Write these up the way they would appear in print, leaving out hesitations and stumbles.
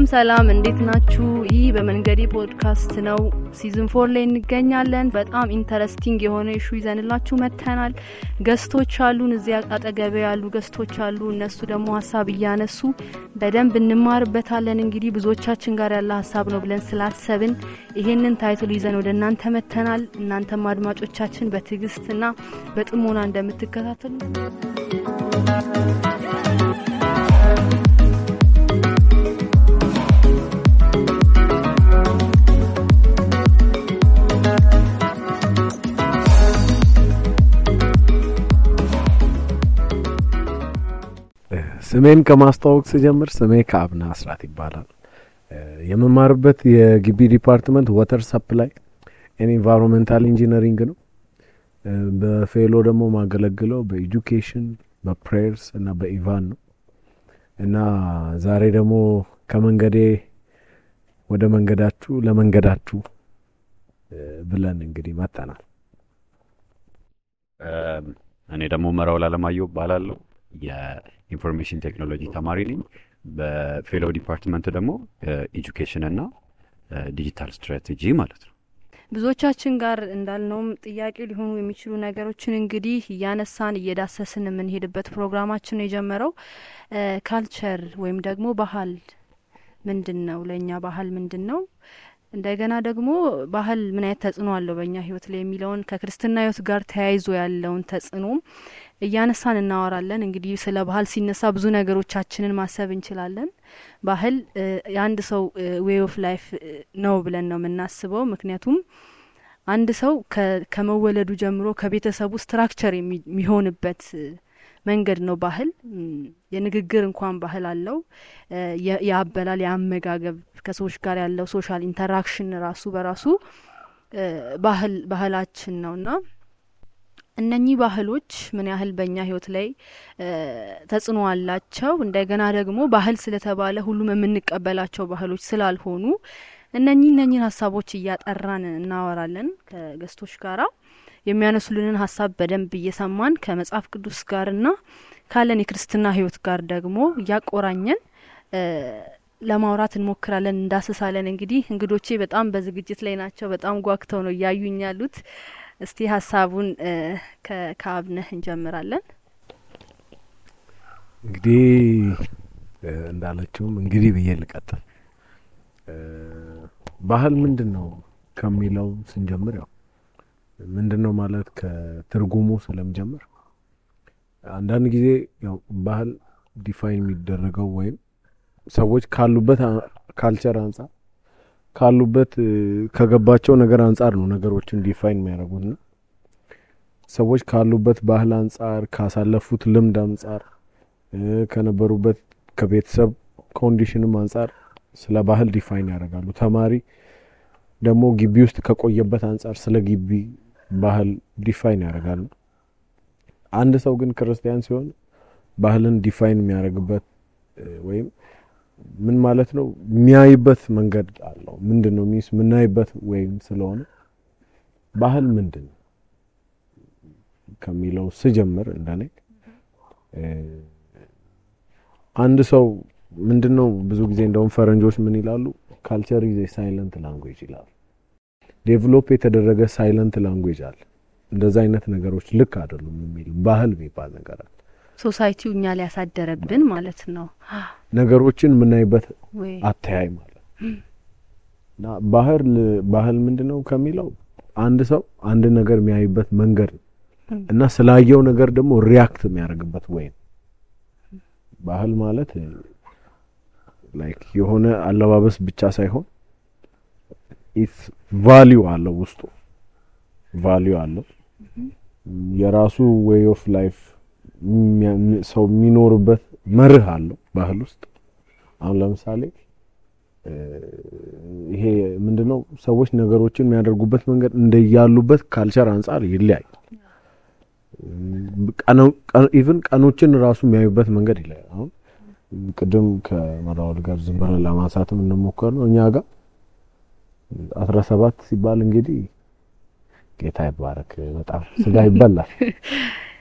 ሰላም እንዴት ናችሁ? ይህ በመንገዴ ፖድካስት ነው። ሲዝን 4 ላይ እንገኛለን። በጣም ኢንተረስቲንግ የሆነ ኢሹ ይዘንላችሁ መጥተናል። ገስቶች አሉን፣ እዚያ አጠገቤ ያሉ ገስቶች አሉ። እነሱ ደግሞ ሐሳብ እያነሱ በደንብ እንማርበታለን። እንግዲህ ብዙዎቻችን ጋር ያለ ሐሳብ ነው ብለን ስላሰብን ይሄንን ታይትል ይዘን ወደ እናንተ መጥተናል። እናንተም አድማጮቻችን በትዕግስትና በጥሞና እንደምትከታተሉ ስሜን ከማስተዋወቅ ስጀምር ስሜ ከአብና አስራት ይባላል። የመማርበት የግቢ ዲፓርትመንት ዋተር ሰፕላይ ኤንድ ኢንቫይሮንመንታል ኢንጂነሪንግ ነው። በፌሎ ደግሞ ማገለግለው በኤጁኬሽን በፕሬየርስ እና በኢቫን ነው። እና ዛሬ ደግሞ ከመንገዴ ወደ መንገዳችሁ ለመንገዳችሁ ብለን እንግዲህ መጣናል። እኔ ደግሞ መራው ላለማየሁ ባላለው የኢንፎርሜሽን ቴክኖሎጂ ተማሪ ነኝ። በፌሎ ዲፓርትመንት ደግሞ ኤጁኬሽን እና ዲጂታል ስትራቴጂ ማለት ነው። ብዙዎቻችን ጋር እንዳልነውም ጥያቄ ሊሆኑ የሚችሉ ነገሮችን እንግዲህ እያነሳን እየዳሰስን የምንሄድበት ፕሮግራማችን ነው የጀመረው። ካልቸር ወይም ደግሞ ባህል ምንድነው? ለኛ ባህል ምንድነው? እንደገና ደግሞ ባህል ምን አይነት ተጽዕኖ አለው በእኛ ህይወት ላይ የሚለውን ከክርስትና ህይወት ጋር ተያይዞ ያለውን ተጽዕኖ እያነሳን እናወራለን። እንግዲህ ስለ ባህል ሲነሳ ብዙ ነገሮቻችንን ማሰብ እንችላለን። ባህል የአንድ ሰው ዌይ ኦፍ ላይፍ ነው ብለን ነው የምናስበው። ምክንያቱም አንድ ሰው ከመወለዱ ጀምሮ ከቤተሰቡ ስትራክቸር የሚሆንበት መንገድ ነው ባህል። የንግግር እንኳን ባህል አለው። ያበላል፣ ያመጋገብ፣ ከሰዎች ጋር ያለው ሶሻል ኢንተራክሽን ራሱ በራሱ ባህላችን ነውና እነኚህ ባህሎች ምን ያህል በእኛ ህይወት ላይ ተጽዕኖ አላቸው። እንደገና ደግሞ ባህል ስለተባለ ሁሉም የምንቀበላቸው ባህሎች ስላልሆኑ እነኚህን ሀሳቦች እያጠራን እናወራለን ከገስቶች ጋራ። የሚያነሱልንን ሀሳብ በደንብ እየሰማን ከመጽሐፍ ቅዱስ ጋርና ካለን የክርስትና ህይወት ጋር ደግሞ እያቆራኘን ለማውራት እንሞክራለን፣ እንዳስሳለን። እንግዲህ እንግዶቼ በጣም በዝግጅት ላይ ናቸው። በጣም ጓግተው ነው እያዩኝ ያሉት። እስቲ ሀሳቡን ከአብነህ እንጀምራለን። እንግዲህ እንዳለችውም እንግዲህ ብዬ ልቀጥል። ባህል ምንድነው ከሚለው ስንጀምር ያው ምንድነው ማለት ከትርጉሙ ስለምጀምር አንዳንድ ጊዜ ያው ባህል ዲፋይን የሚደረገው ወይም ሰዎች ካሉበት ካልቸር አንፃር ካሉበት ከገባቸው ነገር አንፃር ነው ነገሮችን ዲፋይን የሚያደርጉት ነው። ሰዎች ካሉበት ባህል አንፃር ካሳለፉት ልምድ አንፃር ከነበሩበት ከቤተሰብ ኮንዲሽንም አንፃር ስለ ባህል ዲፋይን ያደርጋሉ። ተማሪ ደግሞ ግቢ ውስጥ ከቆየበት አንፃር ስለ ግቢ ባህል ዲፋይን ያደርጋሉ። አንድ ሰው ግን ክርስቲያን ሲሆን ባህልን ዲፋይን የሚያደርግበት ወይም ምን ማለት ነው የሚያይበት መንገድ አለው። ምንድነው ሚስ ምናይበት ወይም ስለሆነ ባህል ምንድነው ከሚለው ስጀምር እንደኔ አንድ ሰው ምንድነው ብዙ ጊዜ እንደውም ፈረንጆች ምን ይላሉ ካልቸር ኢዝ ኤ ሳይለንት ላንጉዌጅ ይላሉ። ዴቨሎፕ የተደረገ ሳይለንት ላንጉዌጅ አለ። እንደዛ አይነት ነገሮች ልክ አይደሉም የሚል ባህል የሚባል ነገር አለ። ሶሳይቲው እኛ ላይ ያሳደረብን ማለት ነው ነገሮችን ምናይበት አተያይ ማለት እና ባህል ምንድነው ከሚለው አንድ ሰው አንድ ነገር የሚያይበት መንገድ እና ስላየው ነገር ደግሞ ሪአክት የሚያደርግበት ወይ ባህል ማለት ላይክ የሆነ አለባበስ ብቻ ሳይሆን ኢትስ ቫልዩ አለው ውስጡ ቫልዩ አለው። የራሱ ዌይ ኦፍ ላይፍ ሰው የሚኖርበት መርህ አለው ባህል ውስጥ። አሁን ለምሳሌ ይሄ ምንድነው ሰዎች ነገሮችን የሚያደርጉበት መንገድ እንደያሉበት ካልቸር አንፃር ይለያያል። ኢቭን ቀኖችን ራሱ የሚያዩበት መንገድ ይለያያል። አሁን ቅድም ከመራውል ጋር ዝም ብለን ለማንሳትም እንሞክራለን። እኛ ጋር 17 ሲባል እንግዲህ ጌታ ይባረክ በጣም ስጋ ይበላል።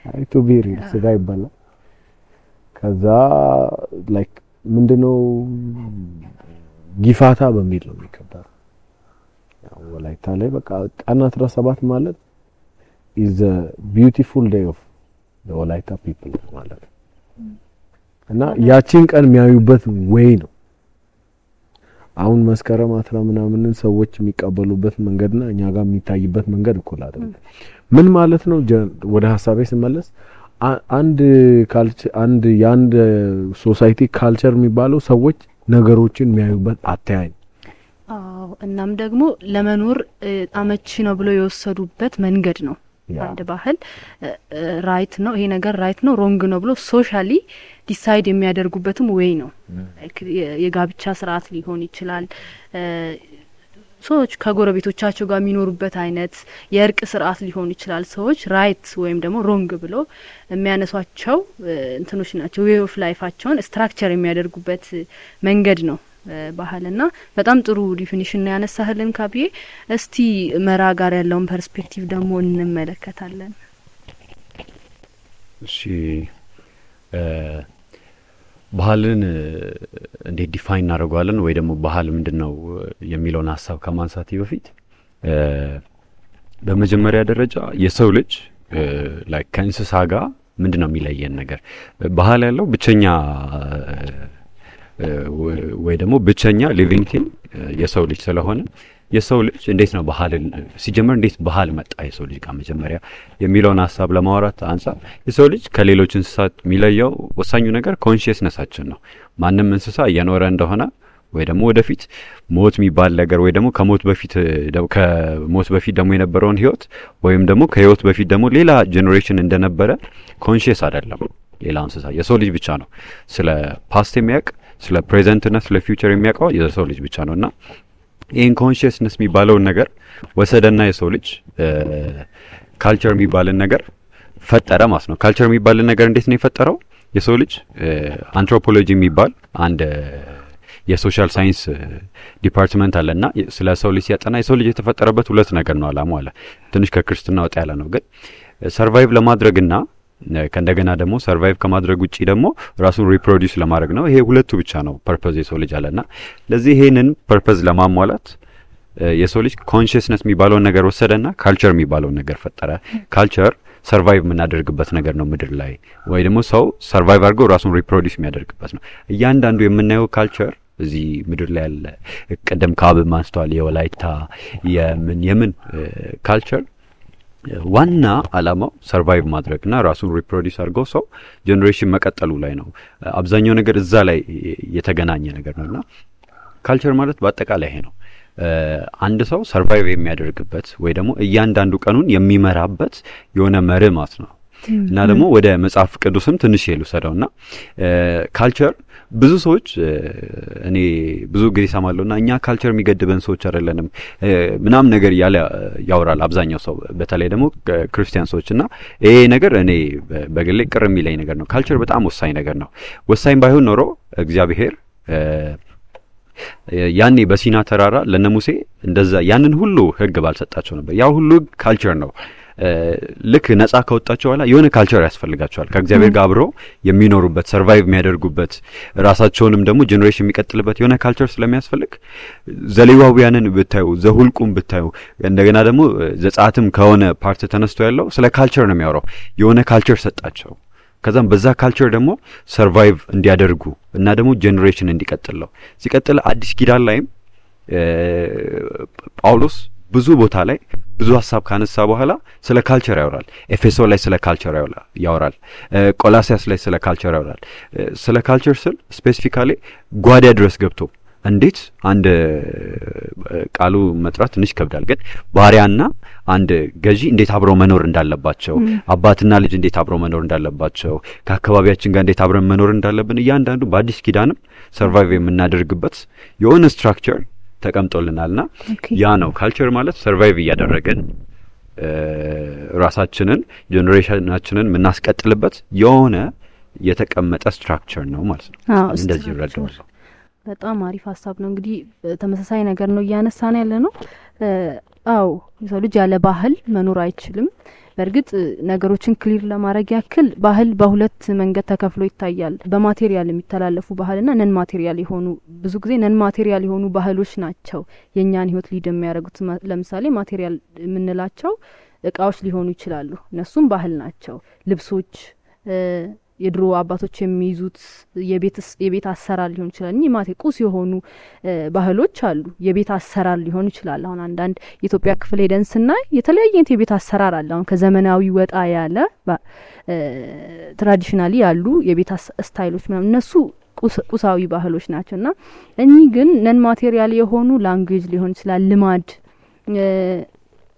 አይ ቱ ቢ ሪል ስጋ ይበላል። ከዛ ላይክ ምንድነው ጊፋታ በሚል ነው የሚከበረው። ያው ወላይታ ላይ በቃ ቀን 17 ማለት is a beautiful day of the ወላይታ people ማለት ነው። እና ያቺን ቀን የሚያዩበት ወይ ነው። አሁን መስከረም 10 ምናምን ሰዎች የሚቀበሉበት መንገድና እኛ ጋር የሚታይበት መንገድ እኮ አይደለም። ምን ማለት ነው? ወደ ሐሳቤ ስመለስ አንድ ካልቸር አንድ ሶሳይቲ ካልቸር የሚባለው ሰዎች ነገሮችን የሚያዩበት አተያይ። እናም ደግሞ ለመኖር አመቺ ነው ብሎ የወሰዱበት መንገድ ነው። አንድ ባህል ራይት ነው፣ ይሄ ነገር ራይት ነው ሮንግ ነው ብሎ ሶሻሊ ዲሳይድ የሚያደርጉበትም ወይ ነው። የጋብቻ ስርዓት ሊሆን ይችላል፣ ሰዎች ከጎረቤቶቻቸው ጋር የሚኖሩበት አይነት የእርቅ ስርዓት ሊሆን ይችላል። ሰዎች ራይት ወይም ደግሞ ሮንግ ብሎ የሚያነሷቸው እንትኖች ናቸው። ዌይ ኦፍ ላይፋቸውን ስትራክቸር የሚያደርጉበት መንገድ ነው ባህልና በጣም ጥሩ ዲፊኒሽን ነው ያነሳህልን ካብዬ። እስቲ መራ ጋር ያለውን ፐርስፔክቲቭ ደግሞ እንመለከታለን። እሺ ባህልን እንዴት ዲፋይን እናደርጋለን ወይ ደግሞ ባህል ምንድነው የሚለውን ሐሳብ ከማንሳት በፊት በመጀመሪያ ደረጃ የሰው ልጅ ላይክ ከእንስሳ ጋር ምንድነው የሚለየን ነገር? ባህል ያለው ብቸኛ ወይ ደግሞ ብቸኛ ሊቪንግ ቲንግ የሰው ልጅ ስለሆነ የሰው ልጅ እንዴት ነው ባህልን ሲጀመር እንዴት ባህል መጣ የሰው ልጅ ጋር መጀመሪያ የሚለውን ሐሳብ ለማውራት አንፃር የሰው ልጅ ከሌሎች እንስሳት የሚለየው ወሳኙ ነገር ኮንሺየስነሳችን ነው። ማንም እንስሳ እየኖረ እንደሆነ ወይ ደግሞ ወደፊት ሞት የሚባል ነገር ወይ ደግሞ ከሞት በፊት ደግሞ የነበረውን ህይወት ወይም ደግሞ ከህይወት በፊት ደግሞ ሌላ ጄኔሬሽን እንደነበረ ኮንሺየስ አይደለም ሌላ እንስሳ። የሰው ልጅ ብቻ ነው ስለ ፓስት የሚያውቅ ስለ ፕሬዘንት እና ስለ ፊውቸር የሚያውቀው የሰው ልጅ ብቻ ነውና ይሄን ኮንሺየስነስ የሚባለውን ነገር ወሰደና የሰው ልጅ ካልቸር የሚባልን ነገር ፈጠረ ማለት ነው። ካልቸር የሚባልን ነገር እንዴት ነው የፈጠረው? የሰው ልጅ አንትሮፖሎጂ የሚባል አንድ የሶሻል ሳይንስ ዲፓርትመንት አለና ስለ ሰው ልጅ ሲያጠና የሰው ልጅ የተፈጠረበት ሁለት ነገር ነው አላማው አለ። ትንሽ ከክርስትና ወጣ ያለ ነው ግን ሰርቫይቭ ለማድረግና ከእንደገና ደግሞ ሰርቫይቭ ከማድረግ ውጪ ደግሞ ራሱን ሪፕሮዲዩስ ለማድረግ ነው። ይሄ ሁለቱ ብቻ ነው ፐርፐዝ የሰው ልጅ አለና ለዚህ ይሄንን ፐርፐዝ ለማሟላት የሰው ልጅ ኮንሺየስነስ የሚባለውን ነገር ወሰደና ካልቸር የሚባለውን ነገር ፈጠረ። ካልቸር ሰርቫይቭ የምናደርግበት ነገር ነው ምድር ላይ ወይ ደግሞ ሰው ሰርቫይቭ አድርጎ ራሱን ሪፕሮዲዩስ የሚያደርግበት ነው። እያንዳንዱ የምናየው ካልቸር እዚህ ምድር ላይ ያለ ቀደም ካብ ማንስተዋል የወላይታ የምን ካልቸር ዋና አላማው ሰርቫይቭ ማድረግና ራሱን ሪፕሮዲዩስ አድርጎ ሰው ጄኔሬሽን መቀጠሉ ላይ ነው። አብዛኛው ነገር እዛ ላይ የተገናኘ ነገር ነውና ካልቸር ማለት በአጠቃላይ ይሄ ነው። አንድ ሰው ሰርቫይቭ የሚያደርግበት ወይ ደግሞ እያንዳንዱ ቀኑን የሚመራበት የሆነ መርህ ማለት ነው። እና ደግሞ ወደ መጽሐፍ ቅዱስም ትንሽ ይሉሰደውና ካልቸር ብዙ ሰዎች እኔ ብዙ ጊዜ ሰማለሁና እኛ ካልቸር የሚገድበን ሰዎች አይደለንም ምናም ነገር ያወራል አብዛኛው ሰው በተለይ ደግሞ ክርስቲያን ሰዎችና ይሄ ነገር እኔ በግሌ ቅር የሚለኝ ነገር ነው። ካልቸር በጣም ወሳኝ ነገር ነው። ወሳኝ ባይሆን ኖሮ እግዚአብሔር ያኔ በሲና ተራራ ለነሙሴ እንደዛ ያንን ሁሉ ህግ ባልሰጣቸው ነበር። ያ ሁሉ ካልቸር ነው። ልክ ነፃ ከወጣቸው በኋላ የሆነ ካልቸር ያስፈልጋቸዋል ከእግዚአብሔር ጋር አብረው የሚኖሩበት ሰርቫይቭ የሚያደርጉበት ራሳቸውንም ደግሞ ጄኔሬሽን የሚቀጥልበት የሆነ ካልቸር ስለሚያስፈልግ ዘሌዋውያንን ብታዩ ዘሁልቁም ብታዩ እንደገና ደግሞ ዘጻትም ከሆነ ፓርት ተነስቶ ያለው ስለ ካልቸር ነው የሚያወራው። የሆነ ካልቸር ሰጣቸው ከዛም በዛ ካልቸር ደግሞ ሰርቫይቭ እንዲያደርጉ እና ደግሞ ጄኔሬሽን እንዲቀጥለው ሲቀጥል አዲስ ኪዳን ላይም ጳውሎስ ብዙ ቦታ ላይ ብዙ ሐሳብ ካነሳ በኋላ ስለ ካልቸር ያወራል። ኤፌሶ ላይ ስለ ካልቸር ያወራል። ቆላሲያስ ላይ ስለ ካልቸር ያወራል። ስለ ካልቸር ስል ስፔሲፊካሊ ጓዳ ድረስ ገብቶ እንዴት አንድ ቃሉ መጥራት ትንሽ ይከብዳል ግን ባሪያና አንድ ገዢ እንዴት አብረው መኖር እንዳለባቸው አባትና ልጅ እንዴት አብረው መኖር እንዳለባቸው ከአካባቢያችን ጋር እንዴት አብረን መኖር እንዳለብን እያንዳንዱ በአዲስ ኪዳንም ሰርቫይቭ የምናደርግበት የሆነ ስትራክቸር ተቀምጦልናልና ያ ነው ካልቸር ማለት ሰርቫይቭ እያደረገን ራሳችንን ጄኔሬሽናችንን የምናስቀጥልበት የሆነ የተቀመጠ ስትራክቸር ነው ማለት ነው። እንደዚህ ይረዳዋል። በጣም አሪፍ ሐሳብ ነው። እንግዲህ ተመሳሳይ ነገር ነው እያነሳን ያለ ነው። አው የሰው ልጅ ያለ ባህል መኖር አይችልም። በእርግጥ ነገሮችን ክሊር ለማድረግ ያክል ባህል በሁለት መንገድ ተከፍሎ ይታያል። በማቴሪያል የሚተላለፉ ባህልና ነን ማቴሪያል የሆኑ ብዙ ጊዜ ነን ማቴሪያል የሆኑ ባህሎች ናቸው የኛን ህይወት ሊድ የሚያደርጉት። ለምሳሌ ማቴሪያል የምንላቸው እቃዎች ሊሆኑ ይችላሉ፣ እነሱም ባህል ናቸው። ልብሶች፣ የድሮ አባቶች የሚይዙት የቤት አሰራር ሊሆን ይችላል። እኚህ ማቴ ቁስ የሆኑ ባህሎች አሉ። የቤት አሰራር ሊሆን ይችላል። አሁን አንዳንድ የኢትዮጵያ ክፍል ሄደን ስናይ የተለያየ አይነት የቤት አሰራር አለ። አሁን ከዘመናዊ ወጣ ያለ ትራዲሽናሊ ያሉ የቤት ስታይሎች ምናምን እነሱ ቁሳዊ ባህሎች ናቸውና እኚህ ግን ነን ማቴሪያል የሆኑ ላንጉዌጅ ሊሆን ይችላል፣ ልማድ፣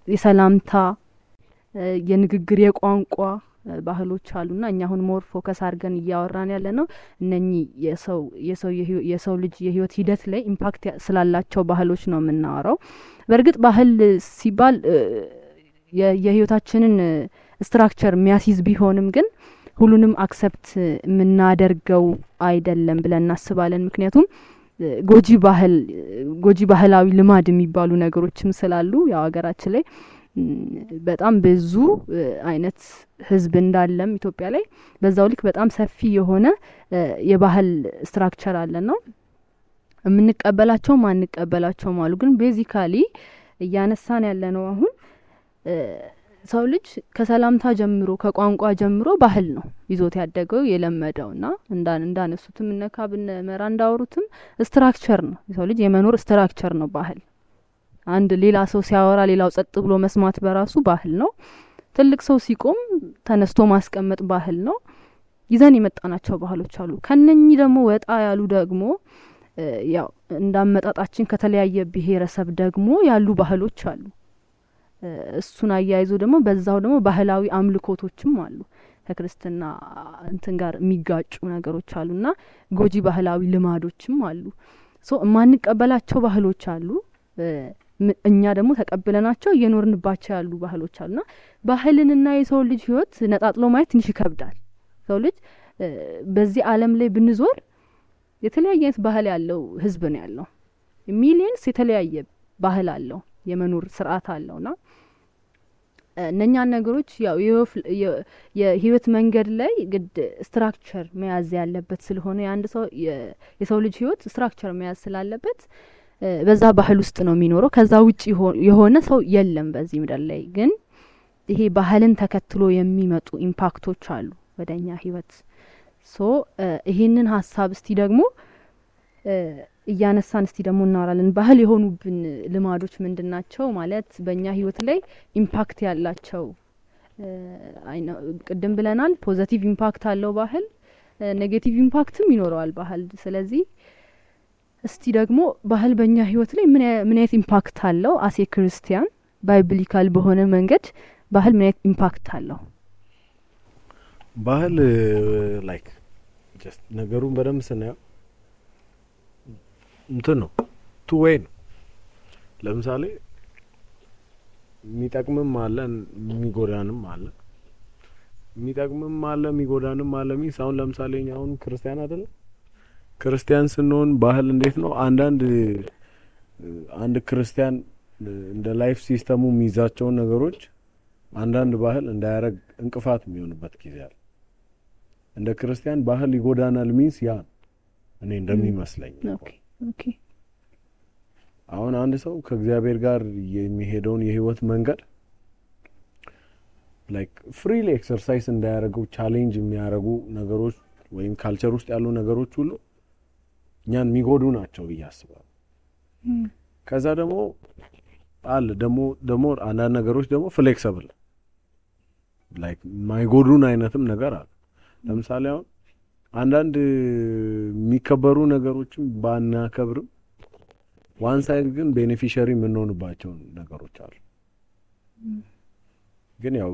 የሰላምታ፣ የንግግር፣ የቋንቋ ባህሎች አሉና እኛ አሁን ሞር ፎከስ አድርገን እያወራን ያለ ነው እነኚህ የሰው ልጅ የህይወት ሂደት ላይ ኢምፓክት ስላላቸው ባህሎች ነው የምናወራው። በእርግጥ ባህል ሲባል የህይወታችንን ስትራክቸር የሚያስይዝ ቢሆንም ግን ሁሉንም አክሰፕት የምናደርገው አይደለም ብለን እናስባለን። ምክንያቱም ጎጂ ባህላዊ ልማድ የሚባሉ ነገሮችም ስላሉ ያው ሀገራችን ላይ በጣም ብዙ አይነት ህዝብ እንዳለም ኢትዮጵያ ላይ በዛው ልክ በጣም ሰፊ የሆነ የባህል ስትራክቸር አለና የምንቀበላቸው ማንቀበላቸው አሉ። ግን ቤዚካሊ እያነሳን ያለነው አሁን ሰው ልጅ ከሰላምታ ጀምሮ ከቋንቋ ጀምሮ ባህል ነው ይዞት ያደገው የለመደውና እንዳነሱትም እነካብነ መራ እንዳወሩትም ስትራክቸር ነው። ሰው ልጅ የመኖር ስትራክቸር ነው ባህል። አንድ ሌላ ሰው ሲያወራ ሌላው ጸጥ ብሎ መስማት በራሱ ባህል ነው። ትልቅ ሰው ሲቆም ተነስቶ ማስቀመጥ ባህል ነው። ይዘን የመጣናቸው ባህሎች አሉ። ከነኚህ ደግሞ ወጣ ያሉ ደግሞ ያው እንዳመጣጣችን ከተለያየ ብሔረሰብ ደግሞ ያሉ ባህሎች አሉ። እሱን አያይዞ ደግሞ በዛው ደግሞ ባህላዊ አምልኮቶችም አሉ። ከክርስትና እንትን ጋር የሚጋጩ ነገሮች አሉና ጎጂ ባህላዊ ልማዶችም አሉ። ማንቀበላቸው ባህሎች አሉ። እኛ ደግሞ ተቀብለናቸው እየኖርንባቸው ያሉ ባህሎች አሉና ባህልንና የሰው ልጅ ህይወት ነጣጥሎ ማየት ትንሽ ይከብዳል። ሰው ልጅ በዚህ ዓለም ላይ ብንዞር የተለያየ አይነት ባህል ያለው ህዝብ ነው ያለው። ሚሊየንስ የተለያየ ባህል አለው፣ የመኖር ስርዓት አለውና እነኛ ነገሮች ያው የህይወት መንገድ ላይ ግድ ስትራክቸር መያዝ ያለበት ስለሆነ የአንድ ሰው የሰው ልጅ ህይወት ስትራክቸር መያዝ ስላለበት በዛ ባህል ውስጥ ነው የሚኖረው። ከዛ ውጪ የሆነ ሰው የለም በዚህ ምድር ላይ። ግን ይሄ ባህልን ተከትሎ የሚመጡ ኢምፓክቶች አሉ ወደኛ ህይወት። ይሄንን ሀሳብ እስቲ ደግሞ እያነሳን እስቲ ደግሞ እናወራለን። ባህል የሆኑብን ልማዶች ምንድናቸው ማለት በእኛ ህይወት ላይ ኢምፓክት ያላቸው ቅድም ብለናል። ፖዚቲቭ ኢምፓክት አለው ባህል፣ ኔጌቲቭ ኢምፓክትም ይኖረዋል ባህል። ስለዚህ እስቲ ደግሞ ባህል በእኛ ህይወት ላይ ምን አይነት ኢምፓክት አለው? አሴ ክርስቲያን ባይብሊካል በሆነ መንገድ ባህል ምን አይነት ኢምፓክት አለው? ባህል ላይክ ጀስት ነገሩን በደንብ ስናየው እንትን ነው ቱ ዌይ ነው። ለምሳሌ የሚጠቅምም አለ የሚጎዳንም አለ። የሚጠቅምም አለ የሚጎዳንም አለ። አሁን ለምሳሌ አሁን ክርስቲያን አይደለም፣ ክርስቲያን ስንሆን ባህል እንዴት ነው? አንድ ክርስቲያን እንደ ላይፍ ሲስተሙ የሚይዛቸውን ነገሮች አንዳንድ ባህል እንዳያረግ እንቅፋት የሚሆንበት ጊዜ አለ። እንደ ክርስቲያን ባህል ይጎዳናል ሚንስ ያ እኔ እንደሚመስለኝ ኦኬ አሁን አንድ ሰው ከእግዚአብሔር ጋር የሚሄደውን የህይወት መንገድ ላይክ ፍሪሊ ኤክሰርሳይዝ እንዳያረገው ቻሌንጅ የሚያረጉ ነገሮች ወይም ካልቸር ውስጥ ያሉ ነገሮች ሁሉ እኛን የሚጎዱ ናቸው ብዬ አስባለሁ። ከዛ ደግሞ አለ ደግሞ አንዳንድ ነገሮች ደግሞ ፍሌክሲብል ላይክ ማይጎዱን አይነትም ነገር አለ። ለምሳሌ አሁን አንዳንድ የሚከበሩ ነገሮችን ባናከብርም ዋን ሳይድ ግን ቤኔፊሻሪ የምንሆንባቸው ነገሮች አሉ። ግን ያው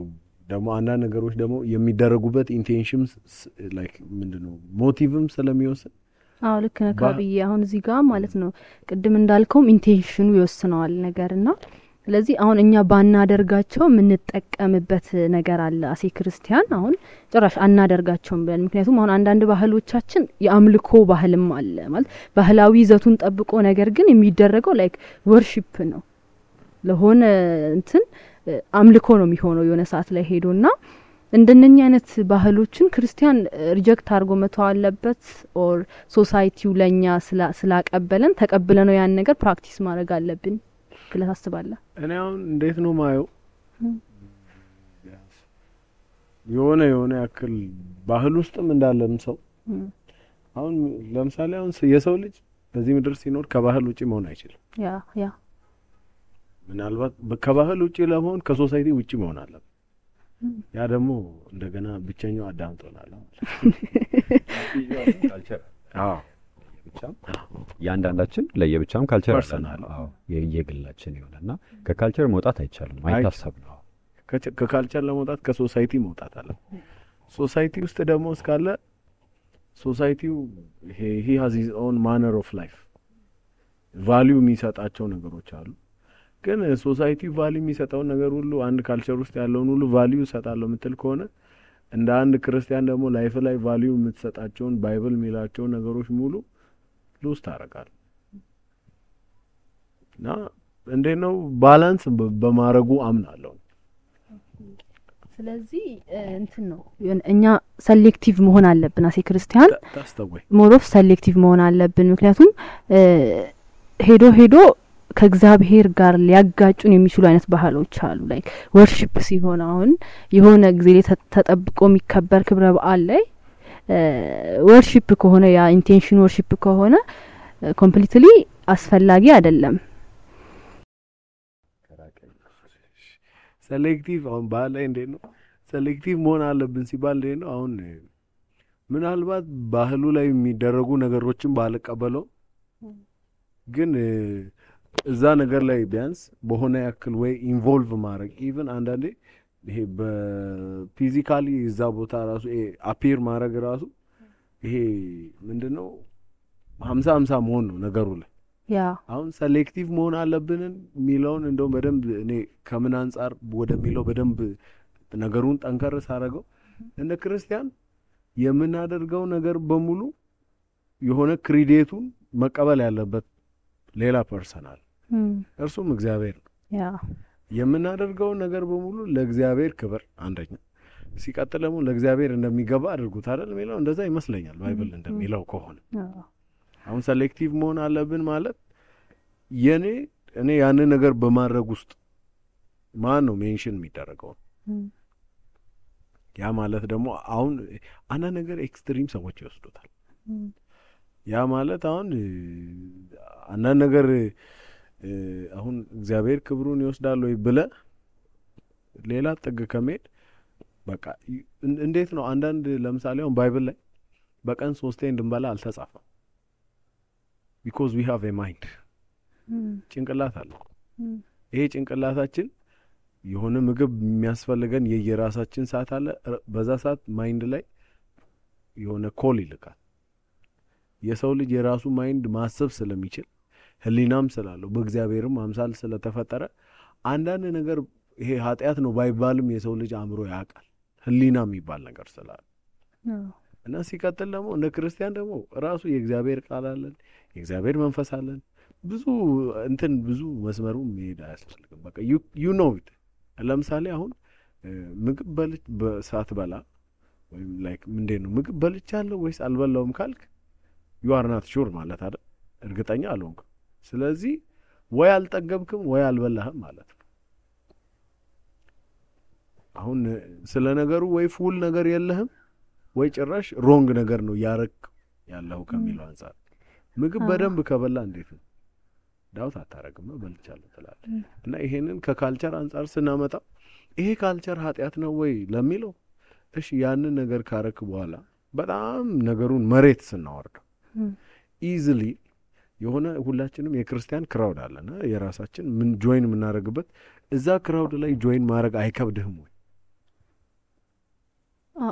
ደግሞ አንዳንድ ነገሮች ደግሞ የሚደረጉበት ኢንቴንሽንስ ላይክ ምንድነው ሞቲቭም ስለሚወስን ልክ ነህ ካብዬ። አሁን እዚህ ጋር ማለት ነው ቅድም እንዳልከውም ኢንቴንሽኑ ይወስነዋል ነገርና ስለዚህ አሁን እኛ ባናደርጋቸው የምንጠቀምበት ነገር አለ አሴ ክርስቲያን አሁን ጭራሽ አናደርጋቸውም ብለን። ምክንያቱም አሁን አንዳንድ ባህሎቻችን የአምልኮ ባህልም አለ ማለት ባህላዊ ይዘቱን ጠብቆ ነገር ግን የሚደረገው ላይክ ወርሺፕ ነው። ለሆነ እንትን አምልኮ ነው የሚሆነው የሆነ ሰዓት ላይ ሄዶና እንደነኛ አይነት ባህሎችን ክርስቲያን ሪጀክት አድርጎ መተው አለበት ኦር ሶሳይቲው ለኛ ስላቀበለን ተቀብለነው ያን ነገር ፕራክቲስ ማድረግ አለብን ብለህ ታስባለህ? እኔ አሁን እንዴት ነው ማየው የሆነ ያክል ባህል ውስጥም እንዳለም ሰው አሁን ለምሳሌ አሁን የሰው ልጅ በዚህ ምድር ሲኖር ከባህል ውጪ መሆን አይችልም። ያ ምናልባት ከባህል ውጪ ለመሆን ከሶሳይቲ ውጪ መሆን አለበት። ያ ደግሞ እንደገና ብቸኛው አዳም ሆናል። ካልቸር ብቻም ያንዳንዳችን ለየብቻም ካልቸር አለን። የየግላችን ይሆናልና ከካልቸር መውጣት አይቻልም፣ አይታሰብም። ከካልቸር ለመውጣት ከሶሳይቲ መውጣት አለ። ሶሳይቲ ውስጥ ደግሞ እስካለ ሶሳይቲው he has his own manner of life value የሚሰጣቸው ነገሮች አሉ። ግን ሶሳይቲ ቫልዩ የሚሰጠው ነገር ሁሉ አንድ ካልቸር ውስጥ ያለውን ሁሉ ቫልዩ ሰጣለው ምትል ከሆነ እንደ አንድ ክርስቲያን ደግሞ ላይፍ ላይ ቫልዩ የምትሰጣቸውን ባይብል የሚላቸው ነገሮች ሙሉ ሉስ ታረጋል። እና እንደነው ባላንስ በማረጉ አምናለሁ። ስለዚህ እንትን ነው እኛ ሴሌክቲቭ መሆን አለብን አሴ ክርስቲያን ታስተውይ ሞሮፍ ሴሌክቲቭ መሆን አለብን። ምክንያቱም ሄዶ ከእግዚአብሔር ጋር ሊያጋጩን የሚችሉ አይነት ባህሎች አሉ። ላይክ ወርሺፕ ሲሆን አሁን የሆነ ጊዜ ተጠብቆ የሚከበር ክብረ በዓል ላይ ወርሺፕ ከሆነ ያ ኢንቴንሽን ወርሺፕ ከሆነ ኮምፕሊትሊ አስፈላጊ አይደለም። ሴሌክቲቭ አሁን ባህል ላይ እንዴት ነው ሴሌክቲቭ መሆን አለብን ሲባል እንዴት ነው አሁን ምናልባት ባህሉ ላይ የሚደረጉ ነገሮችን ባልቀበለው ግን እዛ ነገር ላይ ቢያንስ በሆነ ያክል ወይ ኢንቮልቭ ማድረግ ኢቭን አንዳንዴ ይሄ በፊዚካሊ እዛ ቦታ ራሱ አፒር ማድረግ ራሱ ይሄ ምንድነው 50-50 መሆን ነው ነገሩ ላይ። ያ አሁን ሴሌክቲቭ መሆን አለብን ሚለውን እንደው በደንብ እኔ ከምን አንፃር ወደሚለው በደንብ ነገሩን ጠንከር ሳረገው እንደ ክርስቲያን የምናደርገው ነገር በሙሉ የሆነ ክሬዲቱን መቀበል ያለበት ሌላ ፐርሰናል እርሱም እግዚአብሔር ነው። ያ የምናደርገው ነገር በሙሉ ለእግዚአብሔር ክብር አንደኛ ሲቀጥል ደግሞ ለእግዚአብሔር እንደሚገባ አድርጉት አይደል የሚለው እንደዛ ይመስለኛል ባይብል እንደሚለው ከሆነ። አሁን ሴሌክቲቭ መሆን አለብን ማለት እኔ ያን ነገር በማድረግ ውስጥ ማን ነው ሜንሽን የሚደረገው? ያ ማለት ደግሞ አሁን አና ነገር ኤክስትሪም ሰዎች ይወስዱታል። ያ ማለት አሁን አና ነገር አሁን እግዚአብሔር ክብሩን ይወስዳል ወይ ብለ ሌላ ጥግ ከመሄድ በቃ እንዴት ነው አንዳንድ ለምሳሌ አሁን ባይብል ላይ በቀን 3 እንድንበላ አልተጻፈም። because we have a mind ጭንቅላት አለ። ይሄ ጭንቅላታችን የሆነ ምግብ የሚያስፈልገን የየራሳችን ሰዓት አለ። በዛ ሰዓት ማይንድ ላይ የሆነ ኮል ይልካል። የሰው ልጅ የራሱ ማይንድ ማሰብ ስለሚችል ህሊናም ስላለው በእግዚአብሔርም አምሳል ስለተፈጠረ አንዳንድ ነገር ይሄ ኃጢያት ነው ባይባልም የሰው ልጅ አእምሮ ያውቃል ህሊና የሚባል ነገር ስላለ እና ሲቀጥል ደግሞ እንደ ክርስቲያን ደግሞ ራሱ የእግዚአብሔር ቃል አለን፣ የእግዚአብሔር መንፈስ አለን። ብዙ መስመሩ መሄድ አያስፈልግም። በቃ you know it። ለምሳሌ አሁን ምግብ በሰዓት በላ ወይም ላይክ ምንድን ነው ምግብ በልቻለሁ ወይስ አልበላውም ካልክ you are not sure ማለት አይደል? እርግጠኛ አልሆንክም። ስለዚህ ወይ አልጠገብክም ወይ አልበላህም ማለት ነው። አሁን ስለ ነገሩ ወይ ፉል ነገር የለህም ወይ ጭራሽ ሮንግ ነገር ነው ያረክ ያለው ከሚለው አንፃር ምግብ በደንብ ከበላ እንዴት ነው ዳውት አታረግም በልቻለሁ ትላለህ። እና ይሄንን ከካልቸር አንፃር ስናመጣ ይሄ ካልቸር ኃጢያት ነው ወይ ለሚለው እሺ ያንን ነገር ካረክ በኋላ በጣም ነገሩን መሬት ስናወርድ ኢዚሊ የሆነ ሁላችንም የክርስቲያን ክራውድ አለና የራሳችን ምን ጆይን የምናደርግበት እዛ ክራውድ ላይ ጆይን ማድረግ አይከብድህም ወይ?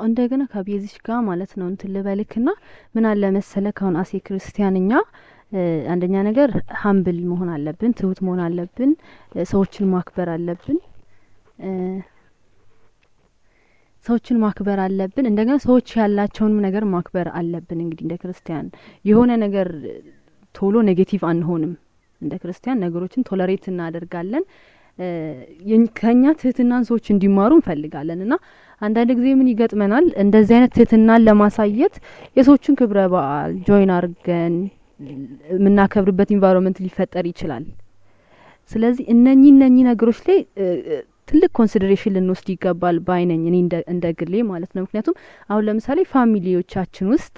እንደገና ከቤዚሽ ጋር ማለት ነው እንትን ልበልክና ምን አለ መሰለህ አሁን አሴ ክርስቲያንኛ አንደኛ ነገር ሃምብል መሆን አለብን፣ ትሁት መሆን አለብን፣ ሰዎችን ማክበር አለብን። እንደገና ሰዎች ያላቸውን ነገር ማክበር አለብን። እንግዲህ እንደ ክርስቲያን የሆነ ነገር ቶሎ ኔጌቲቭ አንሆንም። እንደ ክርስቲያን ነገሮችን ቶለሬት እናደርጋለን። ከኛ ትህትናን ሰዎች እንዲማሩ እንፈልጋለን እና አንዳንድ ጊዜ ምን ይገጥመናል እንደዚህ አይነት ትህትናን ለማሳየት የሰዎችን ክብረ በዓል ጆይን አድርገን የምናከብርበት ኢንቫይሮንመንት ሊፈጠር ይችላል። ስለዚህ እነኚህ ነገሮች ላይ ትልቅ ኮንሲደሬሽን ልንወስድ ይገባል ባይነኝ እኔ እንደ ግሌ ማለት ነው። ምክንያቱም አሁን ለምሳሌ ፋሚሊዎቻችን ውስጥ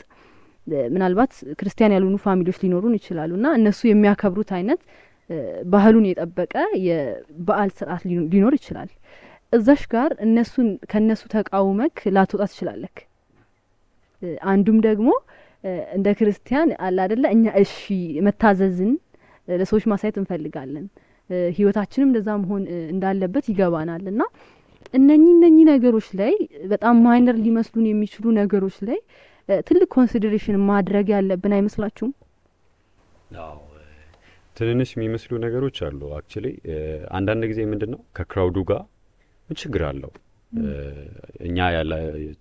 ምናልባት ክርስቲያን ያልሆኑ ፋሚሊዎች ሊኖሩን ይችላሉና እነሱ የሚያከብሩት አይነት ባህሉን የጠበቀ የበዓል ስርዓት ሊኖር ይችላል። እዛሽ ጋር ከነሱ ተቃውመክ ላትወጣ ትችላለክ። አንዱም ደግሞ እንደ ክርስቲያን አለ አይደለ እኛ እሺ መታዘዝን ለሰዎች ማሳየት እንፈልጋለን። ህይወታችንም እንደዛ መሆን እንዳለበት ይገባናልና እነኚህ ነገሮች ላይ በጣም ማይነር ሊመስሉን የሚችሉ ነገሮች ላይ ትልቅ ኮንሲደሬሽን ማድረግ ያለብን አይመስላችሁም? አዎ ትንንሽ የሚመስሉ ነገሮች አሉ። አክቹሊ አንዳንድ ጊዜ ምንድነው ከክራውዱ ጋር ምን ችግር አለው? እኛ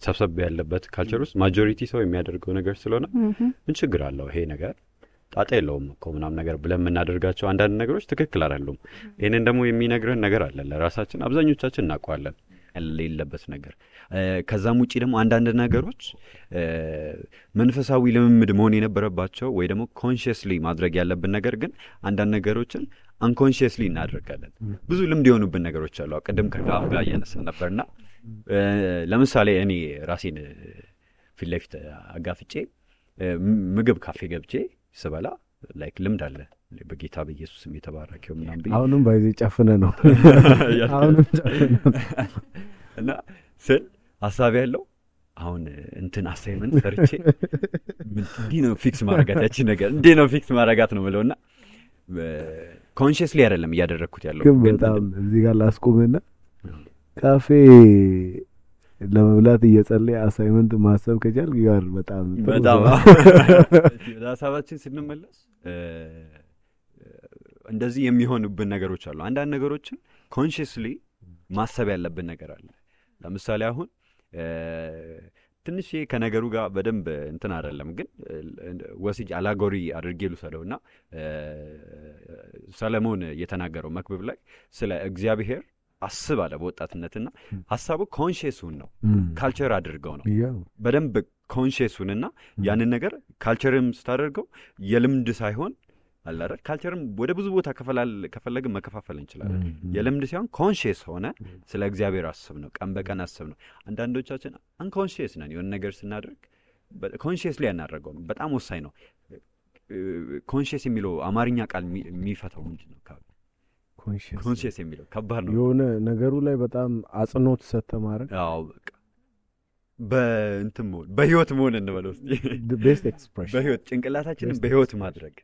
ሰብሰብ ያለበት ካልቸር ውስጥ ማጆሪቲ ሰው የሚያደርገው ነገር ስለሆነ ምን ችግር አለው? ይሄ ነገር ጣጣ የለውም እኮ ምናምን ነገር ብለን የምናደርጋቸው አንዳንድ ነገሮች ትክክል አይደሉም። ይሄንን ደግሞ የሚነግረን ነገር አለ ለራሳችን አብዛኞቻችን እናውቀዋለን የሌለበት ነገር። ከዛም ውጪ ደግሞ አንዳንድ ነገሮች መንፈሳዊ ልምምድ መሆን የነበረባቸው ወይ ደግሞ ኮንሺየስሊ ማድረግ ያለብን ነገር ግን አንዳንድ ነገሮችን አንኮንሺየስሊ እናደርጋለን። ብዙ ልምድ የሆኑብን ነገሮች አሉ። ቅድም ከጋር ጋር እያነሳን ነበርና ለምሳሌ እኔ ራሴን ፊት ለፊት አጋፍጬ ምግብ ካፌ ገብቼ ስበላ ላይክ ልምድ አለ በጌታ በኢየሱስም የተባረከው ምናምን ብዬ አሁንም ባይዜ ጨፍነ ነው አሁንም እና ስል ሐሳብ ያለው አሁን እንትን አሳይመንት ሰርቼ እንዲህ ነው ፊክስ ማረጋት ነገር እንዲህ ነው ፊክስ ማረጋት ነው ብለውና ኮንሺየስሊ አይደለም እያደረኩት ያለው። ግን በጣም እዚህ ጋር ላስቆምና ካፌ ለመብላት እየጸለየ አሳይመንት ማሰብ ከቻል ጋር በጣም ራሳችን ስንመለስ እንደዚህ የሚሆንብን ነገሮች አሉ። አንዳንድ ነገሮችን ኮንሺየስሊ ማሰብ ያለብን ነገር አለ። ለምሳሌ አሁን ትንሽ ከነገሩ ጋር በደንብ እንትን አይደለም ግን ወስጅ አላጎሪ አድርጌ ልሰደውና ሰለሞን የተናገረው መክብብ ላይ ስለ እግዚአብሔር አስብ አለ በወጣትነትና ሐሳቡ ኮንሺየሱን ነው ካልቸር አድርገው ነው በደንብ ኮንሺየሱንና ያንን ነገር ካልቸርም ስታደርገው የልምድ ሳይሆን አለ አይደል ካልቸርም ወደ ብዙ ቦታ ከፈለግን መከፋፈል እንችላለን። የልምድ ሳይሆን ኮንሺየስ ሆነ ስለ እግዚአብሔር አስብ ነው ቀን በቀን አስብ ነው። አንዳንዶቻችን አንኮንሺየስ ነን የሆነ ነገር ስናደርግ ኮንሺየስሊ ያናደርገው በጣም ወሳኝ ነው። ኮንሺየስ የሚለው አማርኛ ቃል የሚፈታው ምንድነው? ኮንሺየስ የሚለው ከባድ ነው። የሆነ ነገሩ ላይ በጣም አጽንኦት ሰተማረ አዎ በቃ በእንትም በህይወት መሆን እንበለው the best expression በህይወት ጭንቅላታችንን በህይወት ማድረግ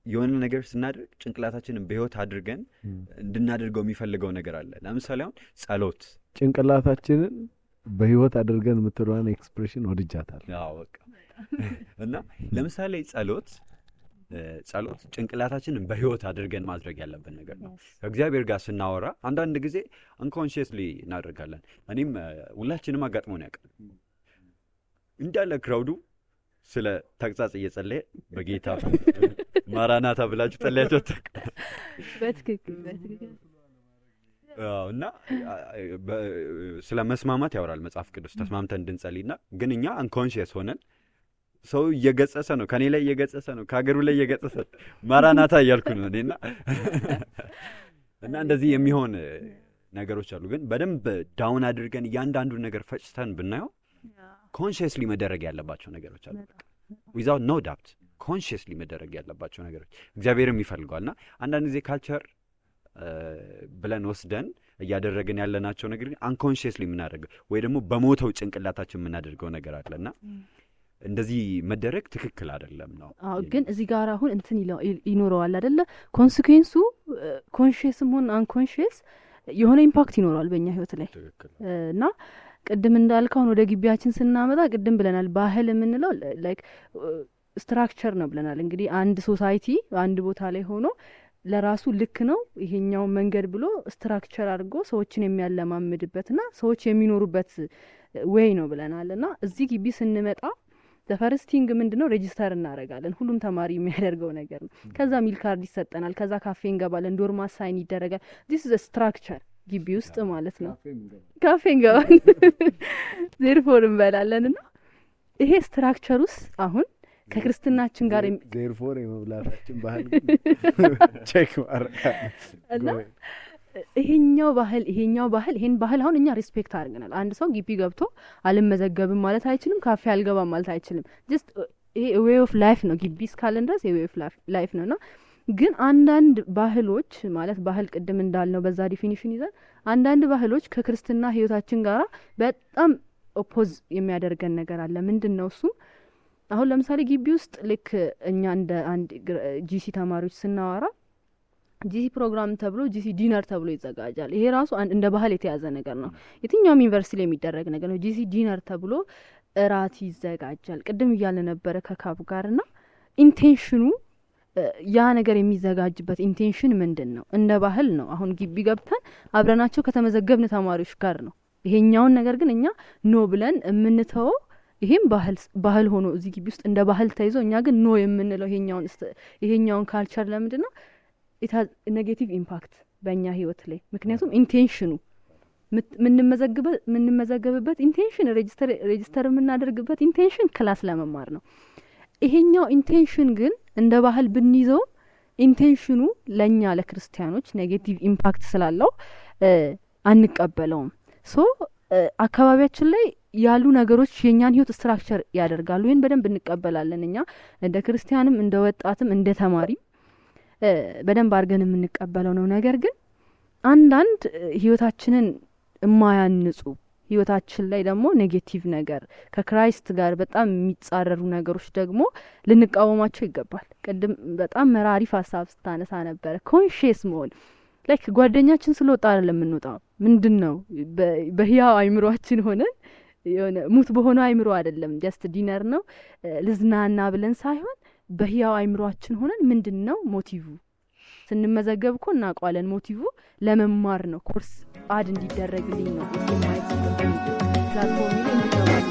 የሆነ ነገር ስናደርግ ጭንቅላታችንን በህይወት አድርገን እንድናደርገው የሚፈልገው ነገር አለ። ለምሳሌ አሁን ጸሎት ጭንቅላታችንን በህይወት አድርገን የምትለዋን ኤክስፕሬሽን ወድጃታል። አዎ በቃ እና ለምሳሌ ጸሎት ጭንቅላታችንን በህይወት አድርገን ማድረግ ያለብን ነገር ነው። ከእግዚአብሔር ጋር ስናወራ አንዳንድ ጊዜ አንኮንሺየስሊ እናደርጋለን። እኔም ሁላችንም አጋጥሞን ያውቃል። እንዳለ ክራውዱ ስለ ተግሳጽ እየጸለየ በጌታ ማራናታ ብላችሁ ጸለያችሁ በትክክል እና ስለ መስማማት ያወራል መጽሐፍ ቅዱስ ተስማምተን እንድንጸልይና ግን እኛ አንኮንሺየስ ሆነን ሰው እየገጸሰ ነው ከኔ ላይ እየገጸሰ ነው ከሀገሩ ላይ እየገጸሰ ማራናታ እያልኩ ነው እኔና እና እንደዚህ የሚሆን ነገሮች አሉ። ግን በደንብ ዳውን አድርገን እያንዳንዱን ነገር ፈጭተን ብናየው ኮንሺየስሊ መደረግ ያለባቸው ነገሮች አሉ። without no doubt ኮንሺየስሊ መደረግ ያለባቸው ነገሮች እግዚአብሔርም ይፈልጋልና አንዳንድ ጊዜ ካልቸር ብለን ወስደን እያደረግን ያለናቸው ነገር ግን አንኮንሺየስሊ የምናደርገው ወይ ደግሞ በሞተው ጭንቅላታችን የምናደርገው ነገር አለና እንደዚህ መደረግ ትክክል አይደለም ነው። አዎ ግን እዚህ ጋር አሁን እንትን ይኖረዋል አይደለ ኮንሲኩዌንሱ ኮንሺየስም ሆነ አንኮንሺየስ የሆነ ኢምፓክት ይኖረዋል በእኛ ህይወት ላይ እና ቅድም እንዳልከው ወደ ግቢያችን ስናመጣ ቅድም ብለናል ባህል የምንለው ላይክ ስትራክቸር ነው ብለናል። እንግዲህ አንድ ሶሳይቲ አንድ ቦታ ላይ ሆኖ ለራሱ ልክ ነው ይሄኛው መንገድ ብሎ ስትራክቸር አድርጎ ሰዎችን የሚያለማምድበትና ሰዎች የሚኖሩበት ዌይ ነው ብለናልና እዚህ ግቢ ስንመጣ ፈርስቲንግ ምንድነው ሬጂስተር እናደርጋለን ሁሉም ተማሪ የሚያደርገው ነገር ነው ከዛ ሚል ካርድ ይሰጠናል ከዛ ካፌ እንገባለን ዶርም አሳይን ይደረጋል this is a structure ግቢ ውስጥ ማለት ነው ካፌ እንገባለን therefore እንበላለንና ይሄ ስትራክቸር ውስጥ አሁን ከክርስትናችን ጋር therefore የመብላታችን ባህል ቼክ ማረጋልና ይሄኛው ባህል ይሄን ባህል አሁን እኛ ሪስፔክት አድርገናል አንድ ሰው ግቢ ገብቶ አልመዘገብም ማለት አይችልም ካፌ አልገባም ማለት አይችልም just ይሄ way of life ነው ግቢ እስካለን ድረስ way of life ነውና ግን አንዳንድ ባህሎች ማለት ባህል ቅድም እንዳልነው በዛ ዲፊኒሽን ይዘን አንዳንድ ባህሎች ከክርስትና ህይወታችን ጋራ በጣም ኦፖዝ የሚያደርገን ነገር አለ ምንድነው እሱ አሁን ለምሳሌ ግቢ ውስጥ ልክ እኛ እንደ አንድ ጂሲ ተማሪዎች ስናወራ ጂሲ ፕሮግራም ተብሎ ጂሲ ዲነር ተብሎ ይዘጋጃል ይሄ ራሱ እንደ ባህል የተያዘ ነገር ነው የትኛውም ዩኒቨርሲቲ ላይ የሚደረግ ነገር ነው ጂሲ ዲነር ተብሎ እራት ይዘጋጃል ቅድም እያለ ነበረ ከካብ ጋርና ኢንቴንሽኑ ያ ነገር የሚዘጋጅበት ኢንቴንሽን ምንድነው እንደ ባህል ነው አሁን ግቢ ገብተን አብረናቸው ከተመዘገብን ተማሪዎች ጋር ነው ይሄኛውን ነገር ግን እኛ ኖ ብለን የምንተው ይሄም ባህል ሆኖ እዚህ ግቢ ውስጥ እንደ ባህል ተይዞ እኛ ግን ኖ የምንለው ይሄኛውን ካልቸር ለምንድነው it has a negative impact በእኛ ህይወት ላይ ምክንያቱም ኢንቴንሽኑ ምንመዘገብበት ኢንቴንሽን ሬጂስተር የምናደርግበት ኢንቴንሽን ክላስ ለመማር ነው ይሄኛው ኢንቴንሽን ግን እንደ ባህል ብንይዘው ኢንቴንሽኑ ለኛ ለክርስቲያኖች ኔጌቲቭ ኢምፓክት ስላለው አንቀበለውም ሶ አካባቢያችን ላይ ያሉ ነገሮች የኛን ህይወት ስትራክቸር ያደርጋሉ ይሄን በደንብ እንቀበላለን እኛ እንደ ክርስቲያንም እንደ ወጣትም እንደ ተማሪ በደንብ አድርገን የምንቀበለው ነው ነገር ግን አንዳንድ ህይወታችንን የማያንጹ ህይወታችን ላይ ደግሞ ኔጌቲቭ ነገር ከክራይስት ጋር በጣም የሚጻረሩ ነገሮች ደግሞ ልንቃወማቸው ይገባል ቅድም በጣም መራሪፍ ሐሳብ ስታነሳ ነበር ኮንሺየስ መሆን ላይክ ጓደኛችን ስለወጣ አይደለም የምንወጣው ምንድነው በህያው አይምሮአችን ሆነን የሆነ ሙት በሆነ አይምሮ አይደለም ጀስት ዲነር ነው ልዝናና ብለን ሳይሆን በህያው አይምሮአችን ሆነን ምንድነው ሞቲቭ ስንመዘገብ እኮ እናቋለን ሞቲቭ ለመማር ነው ኮርስ አድ እንዲደረግልኝ ነው የማይት ፕላትፎርም ላይ እንዲገባል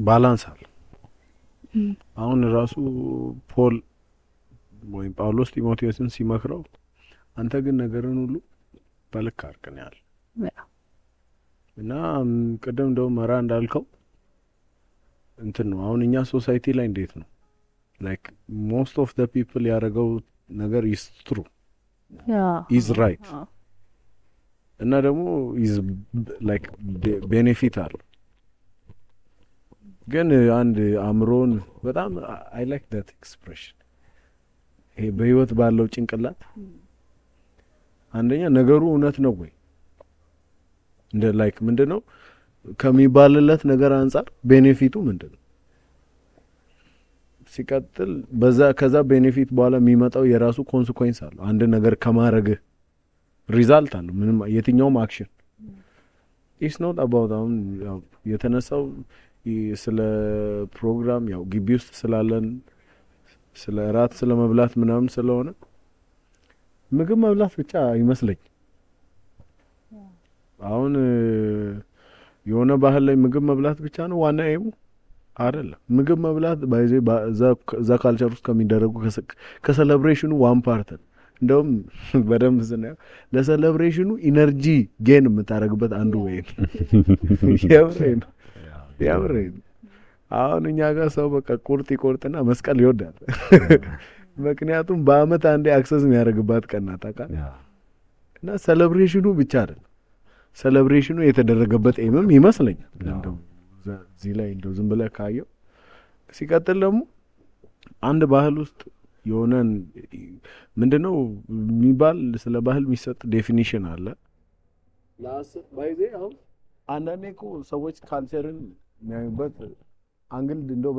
ባላንስ አለ አሁን ራሱ ፖል ወይ ጳውሎስ ጢሞቴዎስን ሲመክረው አንተ ግን ነገርን ሁሉ በልክ አርቀን ያለ እና ቀደም ደው መራ እንዳልከው እንትን ነው አሁን እኛ ሶሳይቲ ላይ እንዴት ነው like most of the people ያረጋው ነገር is true is right እና ደግሞ is like benefit አለ ግን አንድ አምሮን በጣም I like that expression ይሄ በህይወት ባለው ጭንቅላት አንደኛ ነገሩ እውነት ነው ወይ እንደ ላይክ ምንድነው ከሚባልለት ነገር አንፃር ቤኔፊቱ ምንድነው ሲቀጥል ከዛ ቤኔፊት በኋላ የሚመጣው የራሱ ኮንሲኩዌንስ አለ አንድ ነገር ከማረግ ሪዛልት አለ ምንም የትኛውም አክሽን it's not about የተነሳው ስለ ፕሮግራም ያው ግቢ ውስጥ ስላለን ስለ ራት ስለ መብላት ምናምን ስለሆነ ምግብ መብላት ብቻ ይመስለኝ አሁን የሆነ ባህል ላይ ምግብ መብላት ብቻ ነው ዋና ኤሙ አይደለም ምግብ መብላት ባይዜ ዛ ካልቸር ውስጥ ከሚደረጉ ከሴሌብሬሽኑ ዋን ፓርት እንደውም በደንብ ስናየው ለሴሌብሬሽኑ ኢነርጂ ጌን የምታረግበት አንዱ ወይ ያምረኝ አሁን እኛ ጋር ሰው በቃ ቁርጥ ይቆርጥና መስቀል ይወዳል ምክንያቱም በአመት አንዴ አክሰስ የሚያደርግባት ቀን ናት አቃ እና ሴሌብሬሽኑ ብቻ አይደለም ሴሌብሬሽኑ የተደረገበት ኤምም ይመስለኛል እንደው እዚህ ላይ እንደው ዝም ብለህ ካየው ሲቀጥል ደግሞ አንድ ባህል ውስጥ የሆነን ምንድነው የሚባል ስለ ባህል የሚሰጥ ዴፊኒሽን አለ ላስ ባይዜ አሁን አንዳንዴ እኮ ሰዎች ካልቸርን የሚያዩበት አንግል እንደው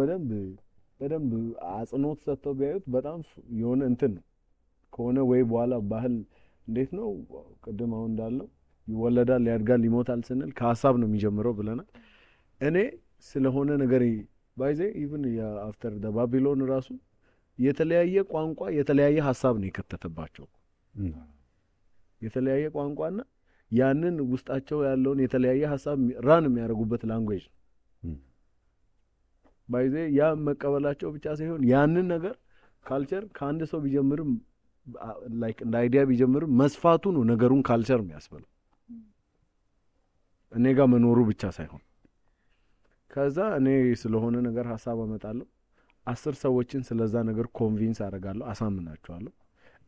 በደንብ አጽንኦት ሰጥተው ቢያዩት በጣም የሆነ እንትን ከሆነ ወይ በኋላ ባህል እንዴት ነው ቅድም አሁን እንዳለው ይወለዳል ያድጋል ይሞታል ስንል ከሀሳብ ነው የሚጀምረው ብለናል። እኔ ስለሆነ ነገር ባይዜ ኢቭን አፍተር ደ ባቢሎን ራሱ የተለያየ ቋንቋ የተለያየ ሀሳብ ነው የከተተባቸው። የተለያየ ቋንቋና ያንን ውስጣቸው ያለውን የተለያየ ሀሳብ ራን የሚያደርጉበት ላንጉዌጅ ነው። ባይዜ ያ መቀበላቸው ብቻ ሳይሆን ያንን ነገር ካልቸር ከአንድ ሰው ቢጀምርም ላይክ እንደ አይዲያ ቢጀምርም መስፋቱ ነው ነገሩን ካልቸር የሚያስበለው እኔ ጋር መኖሩ ብቻ ሳይሆን። ከዛ እኔ ስለሆነ ነገር ሀሳብ አመጣለሁ 10 ሰዎችን ስለዛ ነገር ኮንቪንስ አደርጋለሁ አሳምናቸዋለሁ።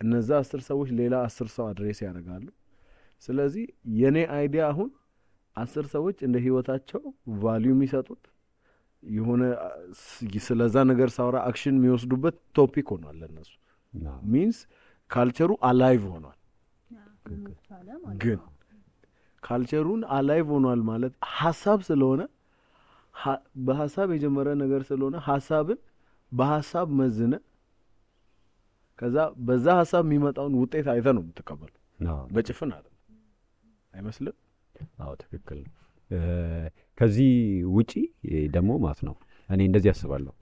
እነዛ 10 ሰዎች ሌላ 10 ሰው አድሬስ ያደርጋሉ። ስለዚህ የኔ አይዲያ አሁን 10 ሰዎች እንደ ህይወታቸው ቫልዩ የሚሰጡት የሆነ ስለዛ ነገር ሳውራ አክሽን የሚወስዱበት ቶፒክ ሆኗል ለነሱ። ሚንስ ካልቸሩ አላይቭ ሆኗል። ግን ካልቸሩን አላይቭ ሆኗል ማለት ሐሳብ ስለሆነ በሐሳብ የጀመረ ነገር ስለሆነ ሐሳብን በሐሳብ መዝነ ከዛ በዛ ሐሳብ የሚመጣውን ውጤት አይተ ነው የምትቀበለው። በጭፍን አይመስልም? አዎ ትክክል። ከዚህ ውጪ ደግሞ ማለት ነው እኔ እንደዚህ አስባለሁ።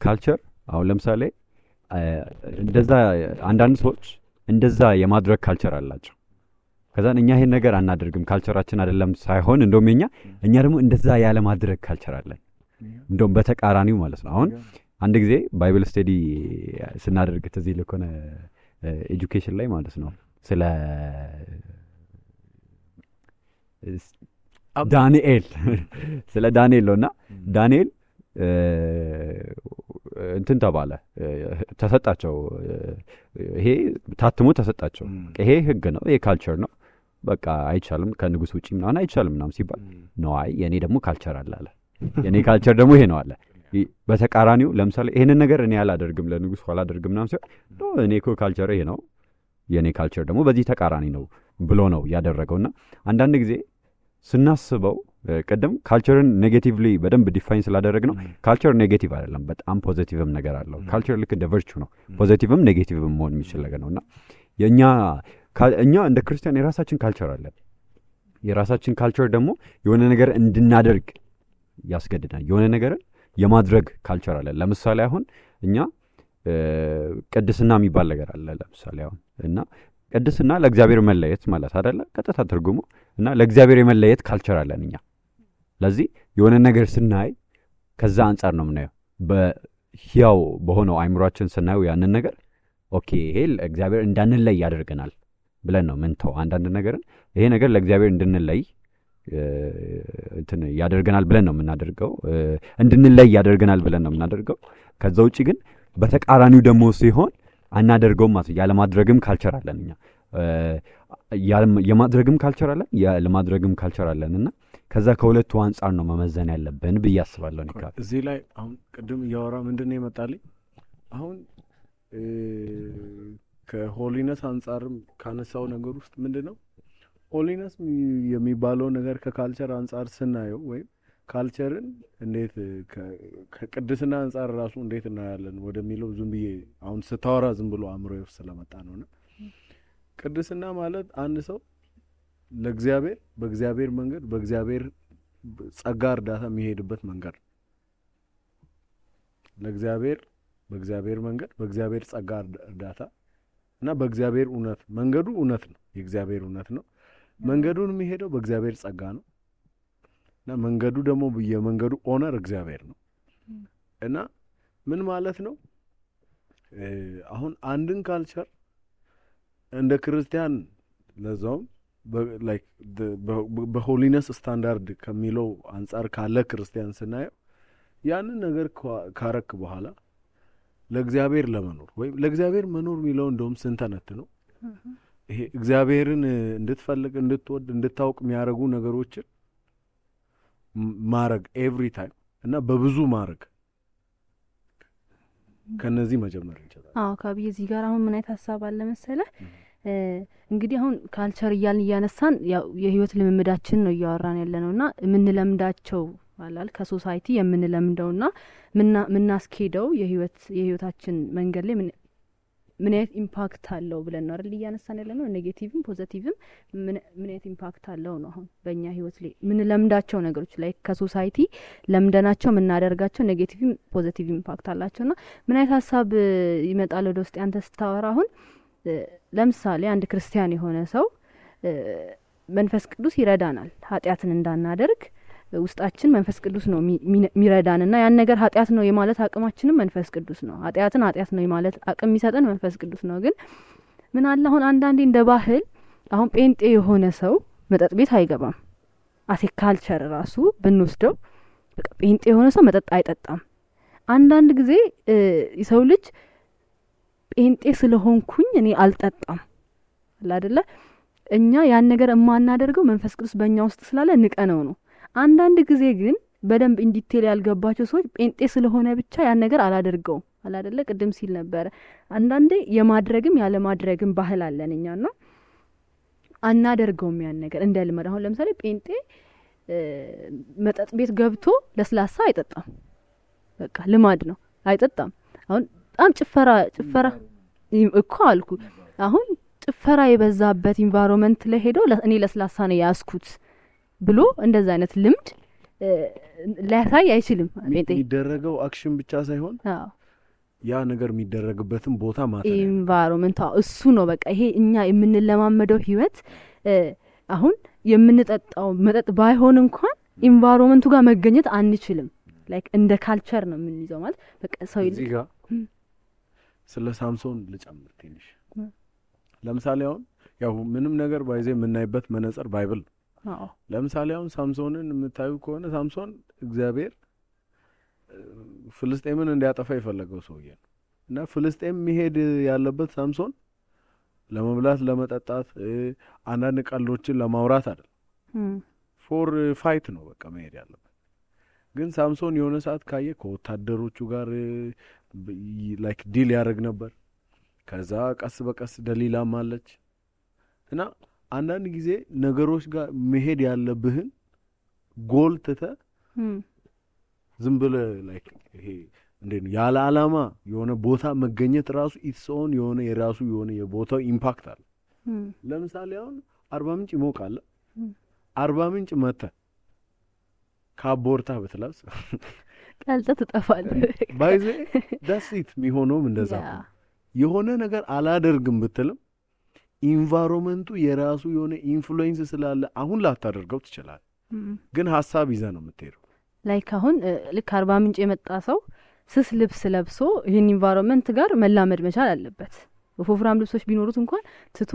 ካልቸር አሁን ለምሳሌ እንደዛ አንዳንድ ሰዎች እንደዛ የማድረግ ካልቸር አላቸው። ከዛ እኛ ይሄን ነገር አናደርግም ካልቸራችን አይደለም ሳይሆን እንደውም እኛ ደግሞ እንደዛ ያለ ማድረግ ካልቸር አለን። እንደውም በተቃራኒው ማለት ነው። አሁን አንድ ጊዜ ባይብል ስቴዲ ስናደርግ ተዚህ ለኮነ ኤጁኬሽን ላይ ማለት ነው ስለ ዳንኤል ስለ ዳንኤል ነውና ዳንኤል እንትን ተባለ ተሰጣቸው። ይሄ ታትሞ ተሰጣቸው። ይሄ ህግ ነው፣ ይሄ ካልቸር ነው፣ በቃ አይቻልም ከንጉስ ውጪ ምናምን አይቻልም ምናምን ሲባል ነው አይ የኔ ደግሞ ካልቸር አለ የኔ ካልቸር ደግሞ ይሄ ነው አለ። በተቃራኒው ለምሳሌ ይሄንን ነገር እኔ አላደርግም ለንጉስ አላደርግም ምናምን ሲባል እኔ እኮ ካልቸር ይሄ ነው የኔ ካልቸር ደግሞ በዚህ ተቃራኒ ነው ብሎ ነው ያደረገውና አንዳንድ ጊዜ ስናስበው ቀደም ካልቸርን ኔጌቲቭሊ በደንብ ዲፋይን ስላደረግ ነው። ካልቸር ኔጌቲቭ አይደለም፣ በጣም ፖዚቲቭም ነገር አለው። ካልቸር ልክ እንደ ቨርቹ ነው፣ ፖዚቲቭም ኔጌቲቭም መሆን የሚችል ነገር ነውና እኛ እንደ ክርስቲያን የራሳችን ካልቸር አለን። የራሳችን ካልቸር ደግሞ የሆነ ነገር እንድናደርግ ያስገድዳል። የሆነ ነገርን የማድረግ ካልቸር አለን። ለምሳሌ አሁን እኛ ቅድስና የሚባል ነገር አለ። ለምሳሌ አሁን እና ቅድስና ለእግዚአብሔር መለየት ማለት አይደለ? ቀጥታ ትርጉሙ እና ለእግዚአብሔር የመለየት ካልቸር አለን እኛ። ለዚህ የሆነ ነገር ስናይ ከዛ አንጻር ነው የምናየው። በህያው በሆነው አይምሯችን ስናየው ያንን ነገር ኦኬ ይሄ ለእግዚአብሔር እንዳንለይ ያደርገናል ብለን ነው ምንተው። አንዳንድ ነገርን ይሄ ነገር ለእግዚአብሔር እንድንለይ እንትን ያደርገናል ብለን ነው የምናደርገው፣ እንድንለይ ያደርገናል ብለን ነው የምናደርገው። ከዛ ውጪ ግን በተቃራኒው ደግሞ ሲሆን አናደርገውም ማለት ያለ ማድረግም ካልቸር አለን እኛ። የማድረግም ካልቸር አለን ያለማድረግም ካልቸር አለንና ከዛ ከሁለቱ አንጻር ነው መመዘን ያለብን ብዬ አስባለሁ። ንካል እዚህ ላይ አሁን ቅድም እያወራ ምንድነው ይመጣልኝ አሁን ከሆሊነስ አንጻርም ካነሳው ነገር ውስጥ ምንድነው ሆሊነስ የሚባለው ነገር ከካልቸር አንጻር ስናየው ወይም ካልቸርን እንዴት ከቅድስና አንጻር ራሱ እንዴት እናያለን ወደሚለው ዝም ብዬ አሁን ስታወራ ዝም ብሎ አእምሮዬ ውስጥ ስለመጣ ነውና ቅድስና ማለት አንድ ሰው ለእግዚአብሔር በእግዚአብሔር መንገድ በእግዚአብሔር ጸጋ እርዳታ የሚሄድበት መንገድ ለእግዚአብሔር በእግዚአብሔር መንገድ በእግዚአብሔር ጸጋ እርዳታ እና በእግዚአብሔር እውነት መንገዱ እውነት ነው፣ የእግዚአብሔር እውነት ነው። መንገዱን የሚሄደው በእግዚአብሔር ጸጋ ነው እና መንገዱ ደግሞ የመንገዱ ኦነር እግዚአብሔር ነው። እና ምን ማለት ነው አሁን አንድን ካልቸር እንደ ክርስቲያን ለዛውም ላይክ በሆሊነስ ስታንዳርድ ከሚለው አንጻር ካለ ክርስቲያን ስናየው ያንን ነገር ካረክ በኋላ ለእግዚአብሔር ለመኖር ወይም ለእግዚአብሔር መኖር የሚለው እንደውም ስንተነት ነው ይሄ እግዚአብሔርን እንድትፈልግ እንድትወድ እንድታውቅ የሚያረጉ ነገሮችን ማረግ ኤቭሪ ታይም እና በብዙ ማረግ ከነዚህ መጀመር እንችላለን። ካብይ እዚህ ጋር አሁን ምን አይነት ሐሳብ አለ መሰለ እንግዲህ አሁን ካልቸር እያልን እያነሳን ያው የህይወት ልምምዳችን ነው እያወራን ያለነውና የምንለምዳቸው አላል ከሶሳይቲ የምንለምደውና ምናስኬደው የህይወታችን መንገድ ላይ ምን አይነት ኢምፓክት አለው ብለን ነው አይደል እያነሳን ያለነው። ኔጌቲቭም ፖዚቲቭም ምን አይነት ኢምፓክት አለው ነው አሁን በእኛ ህይወት ላይ ምን ለምዳቸው ነገሮች ላይ ከሶሳይቲ ለምደናቸው የምናደርጋቸው ኔጌቲቭም ፖዚቲቭ ኢምፓክት አላቸውና ምን አይነት ሀሳብ ይመጣል ወደ ውስጥ አንተ ስታወራ? አሁን ለምሳሌ አንድ ክርስቲያን የሆነ ሰው መንፈስ ቅዱስ ይረዳናል ኃጢአትን እንዳናደርግ ውስጣችን መንፈስ ቅዱስ ነው ሚረዳንና ያን ነገር ኃጢአት ነው የማለት አቅማችንም መንፈስ ቅዱስ ነው። ኃጢአትን ኃጢአት ነው የማለት አቅም የሚሰጠን መንፈስ ቅዱስ ነው። ግን ምን አለ አሁን አንዳንዴ እንደ ባህል አሁን ጴንጤ የሆነ ሰው መጠጥ ቤት አይገባም። አሴ ካልቸር ራሱ ብንወስደው በቃ ጴንጤ የሆነ ሰው መጠጥ አይጠጣም። አንዳንድ ጊዜ የሰው ልጅ ጴንጤ ስለሆንኩኝ እኔ አልጠጣም አይደለ? እኛ ያን ነገር የማናደርገው መንፈስ ቅዱስ በእኛ ውስጥ ስላለ ንቀነው ነው። አንዳንድ ጊዜ ግን በደንብ ኢንዲቴል ያልገባቸው ሰዎች ጴንጤ ስለሆነ ብቻ ያን ነገር አላደርገውም አይደለ? ቅድም ሲል ነበር አንዳንዴ የማድረግም ያለ ማድረግም ባህል አለን እኛና አናደርገውም ያን ነገር እንደ ልማድ። አሁን ለምሳሌ ጴንጤ መጠጥ ቤት ገብቶ ለስላሳ አይጠጣም። በቃ ልማድ ነው አይጠጣም። አሁን በጣም ጭፈራ እኮ አልኩ አሁን ጭፈራ የበዛበት ኢንቫይሮንመንት ላይ ሄዶ እኔ ለስላሳ ነው ያስኩት ብሎ እንደዛ አይነት ልምድ ሊያሳይ አይችልም። የሚደረገው አክሽን ብቻ ሳይሆን ያ ነገር የሚደረግበትን ቦታ ማለት ነው ኢንቫይሮንመንት እሱ ነው በቃ ይሄ እኛ የምንለማመደው ህይወት አሁን የምንጠጣው መጠጥ ባይሆን እንኳን ኢንቫይሮንመንቱ ጋር መገኘት አንችልም። ላይክ እንደ ካልቸር ነው የምንይዘው ማለት በቃ ሰው እዚህ ጋር ስለ ሳምሶን ልጨምር ትንሽ። ለምሳሌ አሁን ያው ምንም ነገር ባይዘ የምናይበት መነጽር ባይብል ነው። ለምሳሌ አሁን ሳምሶንን የምታዩ ከሆነ ሳምሶን እግዚአብሔር ፍልስጤምን እንዲያጠፋ የፈለገው ሰውዬ ነው እና ፍልስጤም መሄድ ያለበት ሳምሶን ለመብላት ለመጠጣት አንዳንድ ቀልዶችን ለማውራት አይደል ፎር ፋይት ነው በቃ መሄድ ያለበት። ግን ሳምሶን የሆነ ሰዓት ካየ ከወታደሮቹ ጋር ላይክ ዲል ያደርግ ነበር። ከዛ ቀስ በቀስ ደሊላም አለች እና አንዳንድ ጊዜ ነገሮች ጋር መሄድ ያለብህን ጎል ትተህ ዝም ብለህ ላይክ ይሄ እንዴት ነው ያለ ዓላማ የሆነ ቦታ መገኘት ራሱ ኢትሶን የሆነ የራሱ የሆነ የቦታው ኢምፓክት አለ። ለምሳሌ አሁን አርባ ምንጭ ይሞቃል። አርባ ምንጭ መተህ ካቦርታ ብትለብስ ቀልጠ ትጠፋለህ። ባይዘ ዳሲት የሚሆነውም እንደዛ ነው። የሆነ ነገር አላደርግም ብትልም ኢንቫይሮንመንቱ የራሱ የሆነ ኢንፍሉዌንስ ስላለ አሁን ላታደርገው ትችላለህ። ግን ሀሳብ ይዘህ ነው የምትሄደው። ላይክ አሁን ልክ አርባ ምንጭ የመጣ ሰው ስስ ልብስ ለብሶ ይህን ኢንቫይሮንመንት ጋር መላመድ መቻል አለበት። ወፍራም ልብሶች ቢኖሩት እንኳን ትቶ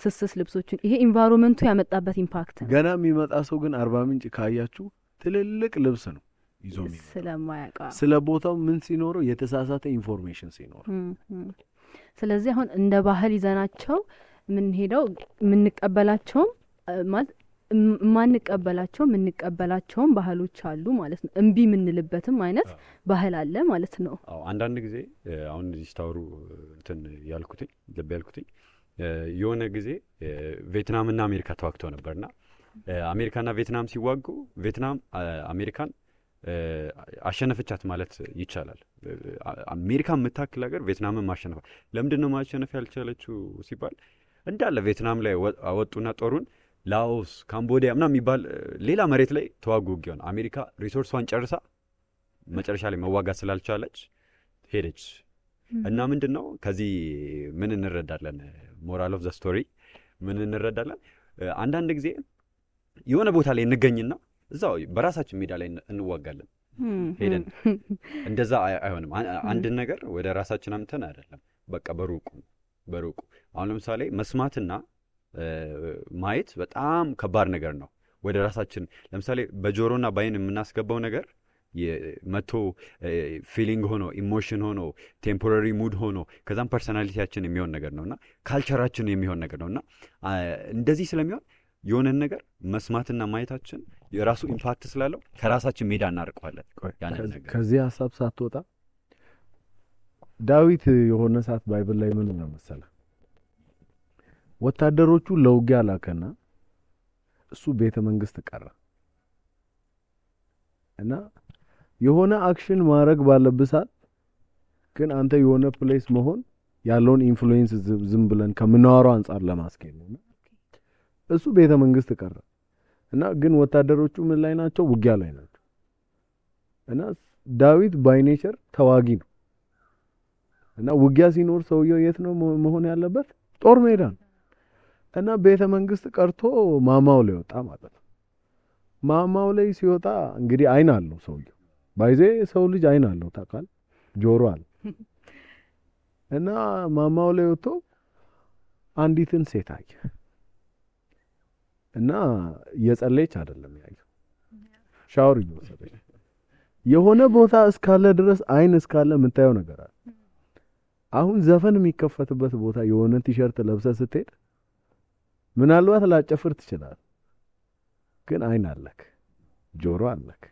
ስስ ልብሶችን ይሄ ኢንቫይሮንመንቱ ያመጣበት ኢምፓክት ነው። ገና የሚመጣ ሰው ግን አርባ ምንጭ ካያችሁ ትልልቅ ልብስ ነው ይዞ የሚመጣ ስለማያውቅ ስለ ቦታው ምን ሲኖረው የተሳሳተ ኢንፎርሜሽን ሲኖር። ስለዚህ አሁን እንደ ባህል ይዘናቸው ምን ሄደው የምንቀበላቸውም ማለት የምንቀበላቸውም ባህሎች አሉ ማለት ነው። እምቢ የምንልበትም አይነት ባህል አለ ማለት ነው። አዎ አንዳንድ ጊዜ አሁን እዚህ ስታወሩ እንትን ያልኩትኝ ልብ ያልኩትኝ የሆነ ጊዜ ቪየትናምና አሜሪካ ተዋግተው ነበርና አሜሪካና ቪየትናም ሲዋጉ ቪየትናም አሜሪካን አሸነፈቻት ማለት ይቻላል። አሜሪካ የምታክል ሀገር ቪየትናምን ማሸነፍ ለምንድን ነው ማሸነፍ ያልቻለችው ሲባል እንዳለ ቪየትናም ላይ አወጡና ጦሩን ላኦስ ካምቦዲያ ምናምን የሚባል ሌላ መሬት ላይ ተዋጉ ውጊያውን። አሜሪካ ሪሶርሷን ጨርሳ መጨረሻ ላይ መዋጋት ስላልቻለች ሄደች እና ምንድን ነው ከዚህ ምን እንረዳለን? ሞራል ኦፍ ዘ ስቶሪ ምን እንረዳለን? አንዳንድ ጊዜ የሆነ ቦታ ላይ እንገኝና እዛው በራሳችን ሜዳ ላይ እንዋጋለን ሄደን። እንደዛ አይሆንም። አንድ ነገር ወደ ራሳችን አምተን አይደለም በቃ በሩቁ አሁን ለምሳሌ መስማትና ማየት በጣም ከባድ ነገር ነው። ወደ ራሳችን ለምሳሌ በጆሮና ባይን የምናስገባው ነገር መቶ ፊሊንግ ሆኖ ኢሞሽን ሆኖ ቴምፖራሪ ሙድ ሆኖ ከዛም ፐርሰናሊቲያችን የሚሆን ነገር ነውና ካልቸራችን የሚሆን ነገር ነውና እንደዚህ ስለሚሆን የሆነን ነገር መስማትና ማየታችን የራሱ ኢምፓክት ስላለው ከራሳችን ሜዳ እናርቀዋለን። ያንን ነገር ከዚህ ሐሳብ ሳትወጣ ዳዊት የሆነ ሰዓት ባይብል ላይ ምን ነው መሰለህ ወታደሮቹ ለውጊያ ላከና እሱ ቤተ መንግስት ቀረ እና የሆነ አክሽን ማድረግ ባለብሳት ግን አንተ የሆነ ፕሌስ መሆን ያለውን ኢንፍሉዌንስ ዝም ብለን ከምናወራው አንፃር ለማስኬድ ነው እሱ ቤተ መንግስት ቀረ እና ግን ወታደሮቹ ምን ላይ ናቸው ውጊያ ላይ ናቸው እና ዳዊት ባይ ኔቸር ተዋጊ ነው እና ውጊያ ሲኖር ሰውየው የት ነው መሆን ያለበት ጦር ሜዳ እና ቤተ መንግስት ቀርቶ ማማው ላይ ወጣ ማለት ነው ማማው ላይ ሲወጣ እንግዲህ አይን አለው ሰውየው ባይዜ ሰው ልጅ አይን አለው ታውቃል ጆሮ አለ እና ማማው ላይ ወጥቶ አንዲትን ሴት አየ እና የጸለየች አይደለም ያየው ሻወር እየወሰደች የሆነ ቦታ እስካለ ድረስ አይን እስካለ የምታየው ነገር አለ አሁን ዘፈን የሚከፈትበት ቦታ የሆነ ቲሸርት ለብሰህ ስትሄድ ምናልባት ላጨፍር ትችላለህ ግን አይን አለክ ጆሮ አለክ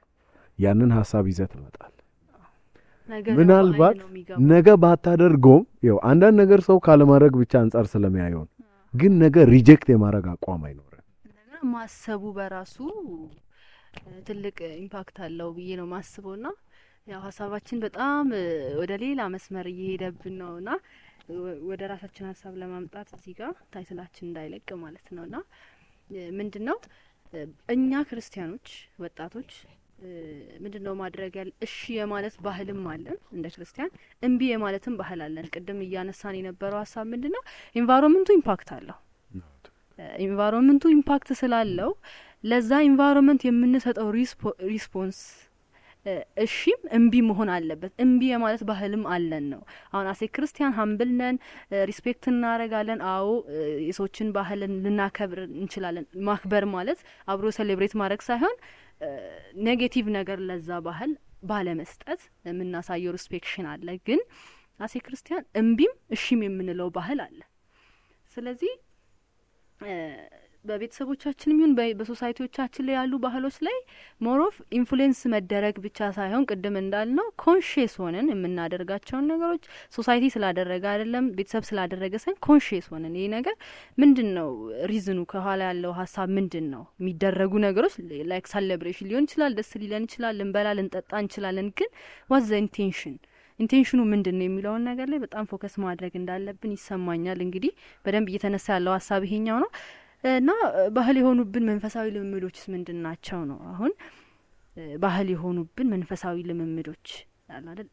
ያንን ሐሳብ ይዘህ ትመጣለህ ምናልባት ነገ ባታደርገውም ያው አንዳንድ ነገር ሰው ካለማድረግ ብቻ አንፃር ስለሚያየው ግን ነገ ሪጀክት የማድረግ አቋም አይኖርም ነገር ማሰቡ በራሱ ትልቅ ኢምፓክት አለው ብዬ ነው ማስበውና ያው ሐሳባችን በጣም ወደ ሌላ መስመር እየሄደብን ነውና ወደ ራሳችን ሐሳብ ለማምጣት እዚህ ጋር ታይትላችን እንዳይለቅ ማለት ነውና ምንድነው እኛ ክርስቲያኖች ወጣቶች ምንድነው ማድረግ ያለ እሺ የማለት ባህልም አለን እንደ ክርስቲያን እንቢ የማለትም ባህል አለን ቅድም እያነሳን የነበረው ሐሳብ ምንድነው ኢንቫይሮንመንቱ ኢምፓክት አለው ኢንቫይሮንመንቱ ኢምፓክት ስላለው ለዛ ኢንቫይሮንመንት የምንሰጠው ሪስፖንስ እሺም እንቢ መሆን አለበት እንቢ የማለት ባህልም አለን ነው አሁን አሴ ክርስቲያን ሃምብል ነን ሪስፔክት እናረጋለን አዎ የሰዎችን ባህል ልናከብር እንችላለን ማክበር ማለት አብሮ ሴሌብሬት ማድረግ ሳይሆን ኔጌቲቭ ነገር ለዛ ባህል ባለመስጠት የምናሳየው ሪስፔክሽን አለ ግን አሴ ክርስቲያን እንቢም እሺም የምንለው ባህል አለ ስለዚህ በቤተሰቦቻችንም ይሁን በሶሳይቲዎቻችን ላይ ያሉ ባህሎች ላይ ሞሮፍ ኢንፍሉዌንስ መደረግ ብቻ ሳይሆን ቅድም እንዳልነው ኮንሺየስ ሆነን የምናደርጋቸውን ነገሮች ሶሳይቲ ስላደረገ አይደለም ቤተሰብ ስላደረገ ሳይሆን ኮንሺየስ ሆነን ይሄ ነገር ምንድነው ሪዝኑ ከኋላ ያለው ሐሳብ ምንድነው የሚደረጉ ነገሮች ላይክ ሴሌብሬሽን ሊሆን ይችላል ደስ ሊለን ይችላል ልንበላ ልንጠጣ እንችላለን ግን ዋት ዘ ኢንቴንሽኑ ምንድነው የሚለውን ነገር ላይ በጣም ፎከስ ማድረግ እንዳለብን ይሰማኛል እንግዲህ በደንብ እየተነሳ ያለው ሐሳብ ይሄኛው ነው እና ባህል የሆኑብን መንፈሳዊ ልምምዶችስ ምንድናቸው ነው አሁን ባህል የሆኑብን መንፈሳዊ ልምምዶች አይደል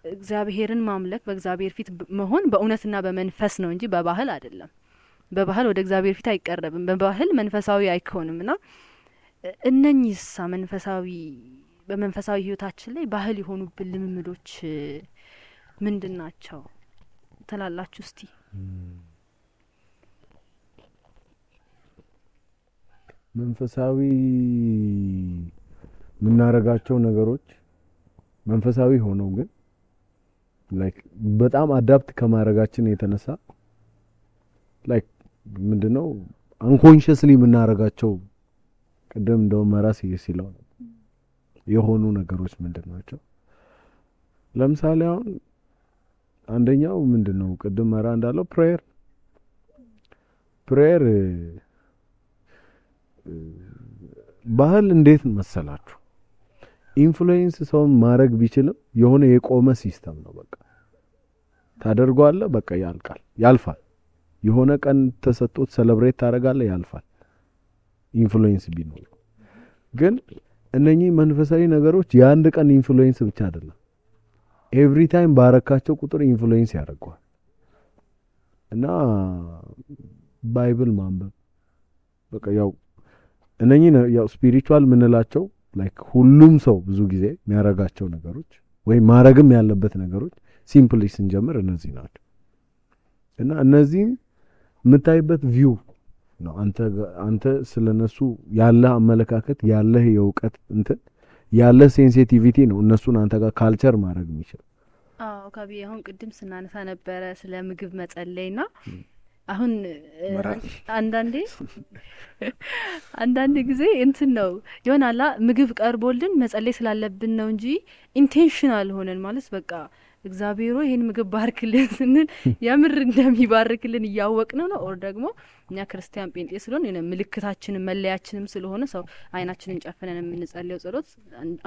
እግዚአብሔርን ማምለክ በእግዚአብሔር ፊት መሆን በእውነትና በመንፈስ ነው እንጂ በባህል አይደለም በባህል ወደ እግዚአብሔር ፊት አይቀርብም በባህል መንፈሳዊ አይኮንምና እነኚህስ በመንፈሳዊ ህይወታችን ላይ ባህል የሆኑብን ልምምዶች ምንድናቸው ተላላችሁ እስቲ መንፈሳዊ ምናረጋቸው ነገሮች መንፈሳዊ ሆነው ግን ላይክ በጣም አዳፕት ከማረጋችን የተነሳ ላይክ ምንድነው አንኮንሺየስሊ ምናረጋቸው ቅድም እንደው መራስ ይሲለው የሆኑ ነገሮች ምንድናቸው ለምሳሌ አሁን አንደኛው ምንድነው ቅድም መራ እንዳለው ፕሬየር ባህል እንዴት መሰላችሁ ኢንፍሉዌንስ ሰውን ማድረግ ቢችልም የሆነ የቆመ ሲስተም ነው በቃ ታደርጓለህ በቃ ያልፋል የሆነ ቀን ተሰጥቶት ሴሌብሬት ታረጋለህ ያልፋል ኢንፍሉዌንስ ቢኖር ግን እነኚህ መንፈሳዊ ነገሮች የአንድ ቀን ኢንፍሉዌንስ ብቻ አይደለም ኤቭሪ ታይም ባረካቸው ቁጥር ኢንፍሉዌንስ ያደርጋል እና ባይብል ማንበብ በቃ ያው እነኚህ ያው ስፒሪቹዋል ምንላቸው ላይክ ሁሉም ሰው ብዙ ጊዜ የሚያረጋቸው ነገሮች ወይ ማረግም ያለበት ነገሮች ሲምፕሊ ስንጀምር እነዚህ ናቸው እና እነዚህ የምታይበት ቪው ነው አንተ ስለነሱ ያለ አመለካከት ያለ የውቀት ያለ ሴንሲቲቪቲ ነው እነሱን አንተ ጋር ካልቸር ማድረግ የሚችል አዎ ካቢ አሁን ቅድም ስናነሳ ነበረ ስለ ምግብ መጸለይና አሁን አንዳንዴ ጊዜ ነው ይሆናላ ምግብ ቀርቦልን መጸለይ ስላለብን ነው እንጂ ኢንቴንሽናል ሆነን ማለት በቃ እግዚአብሔር ይሄን ምግብ ባርክልን ስንል የምር እንደሚባርክልን እያወቅነው ነው ኦር ደግሞ እኛ ክርስቲያን ጴንጤ ስለሆነ የነ ምልክታችንም መለያችንም ስለሆነ ሰው አይናችንን ጨፍነን የምንጸልየው ጸሎት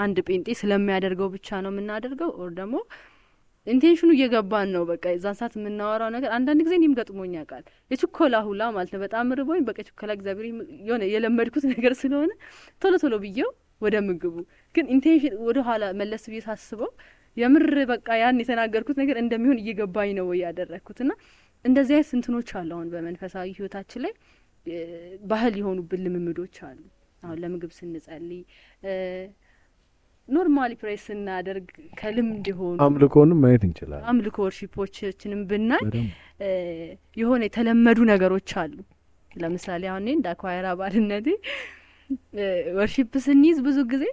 አንድ ጴንጤ ስለሚያደርገው ብቻ ነው የምናደርገው ኦር ደግሞ ኢንቴንሽኑ እየገባን ነው በቃ የዛን ሰዓት የምናወራው ነገር አንዳንድ ጊዜ እኔም ገጥሞኝ ያውቃል የችኮላ ሁላ ማለት ነው በጣም ርቦኝ በቃ ችኮላ እግዚአብሔር የሆነ የለመድኩት ነገር ስለሆነ ቶሎ ብዬው ወደ ምግቡ ግን ኢንቴንሽን ወደ ኋላ መለስ ብዬ ሳስበው የምር በቃ ያን የተናገርኩት ነገር እንደሚሆን እየገባኝ ነው ያደረኩትና እንደዚህ አይነት እንትኖች አሉ አሁን በመንፈሳዊ ህይወታችን ላይ ባህል የሆኑብን ልምምዶች አሉ አሁን ለምግብ ስንጸልይ ኖርማሊ ፕሬስ እናደርግ ከልምድ ሆኖ አምልኮንም ማየት እንችላለን አምልኮ ወርሺፖችንም ብናይ የሆነ የተለመዱ ነገሮች አሉ ለምሳሌ አሁን እንደ አኳየር አባልነቴ ወርሺፕ ስንይዝ ብዙ ጊዜ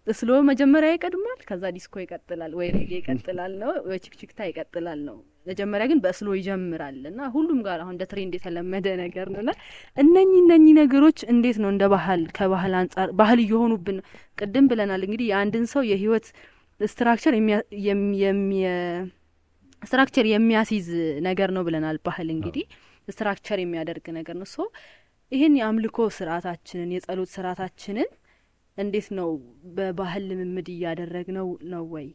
ስሎ መጀመሪያ ይቀድማል ከዛ ዲስኮ ይቀጥላል ወይ ሬጌ ይቀጥላል ነው ወይ ቺክቺክታ ይቀጥላል ነው መጀመሪያ ግን በስሎ ይጀምራልና ሁሉም ጋር አሁን እንደ ትሬንድ የተለመደ ነገር ነውና እነኚህ ነገሮች እንዴት ነው እንደ ባህል ከባህል አንፃር ባህል እየሆኑብን ቅድም ብለናል እንግዲህ የአንድን ሰው የህይወት ስትራክቸር የሚያስይዝ ነገር ነው ብለናል ባህል እንግዲህ ስትራክቸር የሚያደርግ ነገር ነው ሶ ይሄን የአምልኮ ስርዓታችንን የጸሎት ስርዓታችንን እንዴት ነው በባህል ልምምድ እያደረግነው ነው ወይ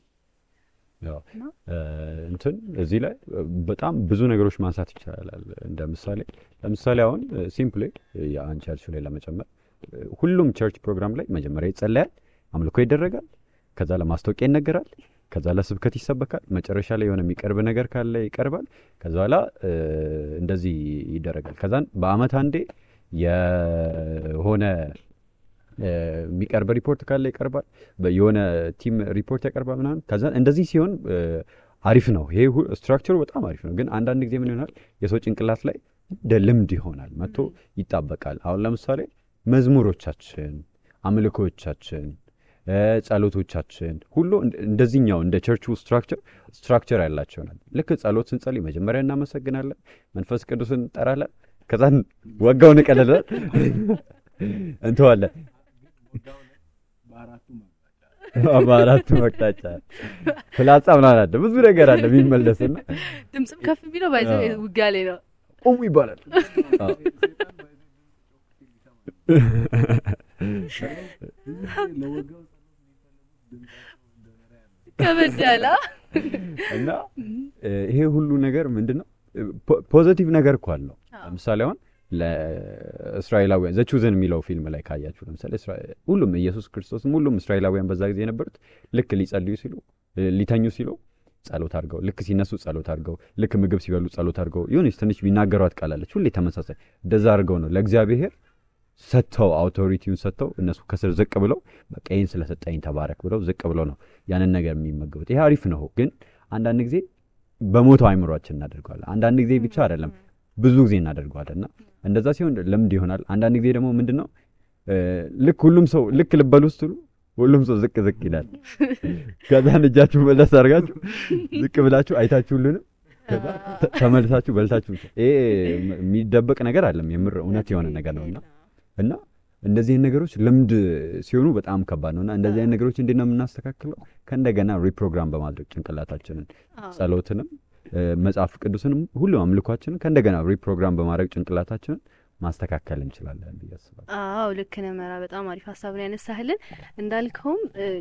እንትን እዚህ ላይ በጣም ብዙ ነገሮች ማንሳት ይቻላል ለምሳሌ አሁን ሲምፕሊ የአንድ ቸርች ላይ ለመጨመር ሁሉም ቸርች ፕሮግራም ላይ መጀመሪያ ይጸለያል አምልኮ ይደረጋል ከዛ ለማስታወቂያ ይነገራል ከዛ ለስብከት ይሰበካል መጨረሻ ላይ የሆነ የሚቀርብ ነገር ካለ ይቀርባል ከዛ በኋላ እንደዚህ ይደረጋል ከዛን በአመት አንዴ የሆነ የሚቀርብ ሪፖርት ካለ ይቀርባል የሆነ ቲም ሪፖርት ያቀርባል ምናምን ከዛ እንደዚህ ሲሆን አሪፍ ነው ይሄ ስትራክቸሩ በጣም አሪፍ ነው ግን አንዳንድ ጊዜ ምን ይሆናል የሰው ጭንቅላት ላይ ልምድ ይሆናል መጥቶ ይጣበቃል አሁን ለምሳሌ መዝሙሮቻችን አምልኮቻችን ጸሎቶቻችን ሁሉ እንደዚህኛው እንደ ቸርቹ ስትራክቸር ያላቸው ናቸው ልክ ጸሎት ስንጸልይ መጀመሪያ እናመሰግናለን መንፈስ ቅዱስን እንጠራለን ከዛን ወጋውን ቀለለ እንተዋለን በአራቱ መቅጣጫ ፍላጻ ምናምን አለ ብዙ ነገር አለ የሚመለስና ድምጽም ከፍ ቢለው ባይዘው ውጋሌ ነው ቆሙ ይባላል ከበደላ እና ይሄ ሁሉ ነገር ምንድነው ፖዚቲቭ ነገር እኮ አለው ለምሳሌ አሁን ለእስራኤላውያን ዘቹዘን የሚለው ፊልም ላይ ካያችሁ ለምሳሌ ሁሉም ኢየሱስ ክርስቶስም ሁሉም እስራኤላውያን በዛ ጊዜ የነበሩት ልክ ሊጸልዩ ሲሉ ሊተኙ ሲሉ ጸሎት አድርገው ልክ ሲነሱ ጸሎት አድርገው ልክ ምግብ ሲበሉ ጸሎት አድርገው ይሁንስ ትንሽ ቢናገሯት ቃላለች ሁሌ ተመሳሳይ እንደዛ አድርገው ነው ለእግዚአብሔር ሰጥተው አውቶሪቲውን ሰጥተው እነሱ ከስር ዝቅ ብለው በቃ ይሄን ስለሰጠኝ ተባረክ ብለው ዝቅ ብለው ነው ያንን ነገር የሚመገቡት ይሄ አሪፍ ነው ግን አንዳንድ ጊዜ በሞተው አይምሮአችን እናደርጋለን አንዳንድ ጊዜ ብቻ አይደለም ብዙ ጊዜ እናደርጋለንና እንደዛ ሲሆን ለምድ ይሆናል አንዳንድ ጊዜ ደግሞ ምንድነው ልክ ሁሉም ሰው ልክ ልበሉ ውስጥ ሁሉም ሰው ዝቅ ይላል ከዛን እጃችሁ መለስ አድርጋችሁ ዝቅ ብላችሁ አይታችሁልንም ከዛ ተመልሳችሁ በልታችሁ ይሄ የሚደበቅ ነገር አይደለም የምር እውነት የሆነ ነገር ነውና እና እንደዚህ ነገሮች ልምድ ሲሆኑ በጣም ከባድ ነውና እንደዚህ ነገሮች እንዴት ነው የምናስተካክለው ከእንደገና ሪፕሮግራም በማድረግ ጭንቅላታችንን ጸሎትንም መጽሐፍ ቅዱስንም ሁሉ አምልኳችንን ከእንደገና ሪፕሮግራም በማድረግ ጭንቅላታችንን ማስተካከል እንችላለን ብያስባለሁ አዎ ልክ ነህ መራ በጣም አሪፍ ሐሳብ ነው ያነሳህልን እንዳልከውም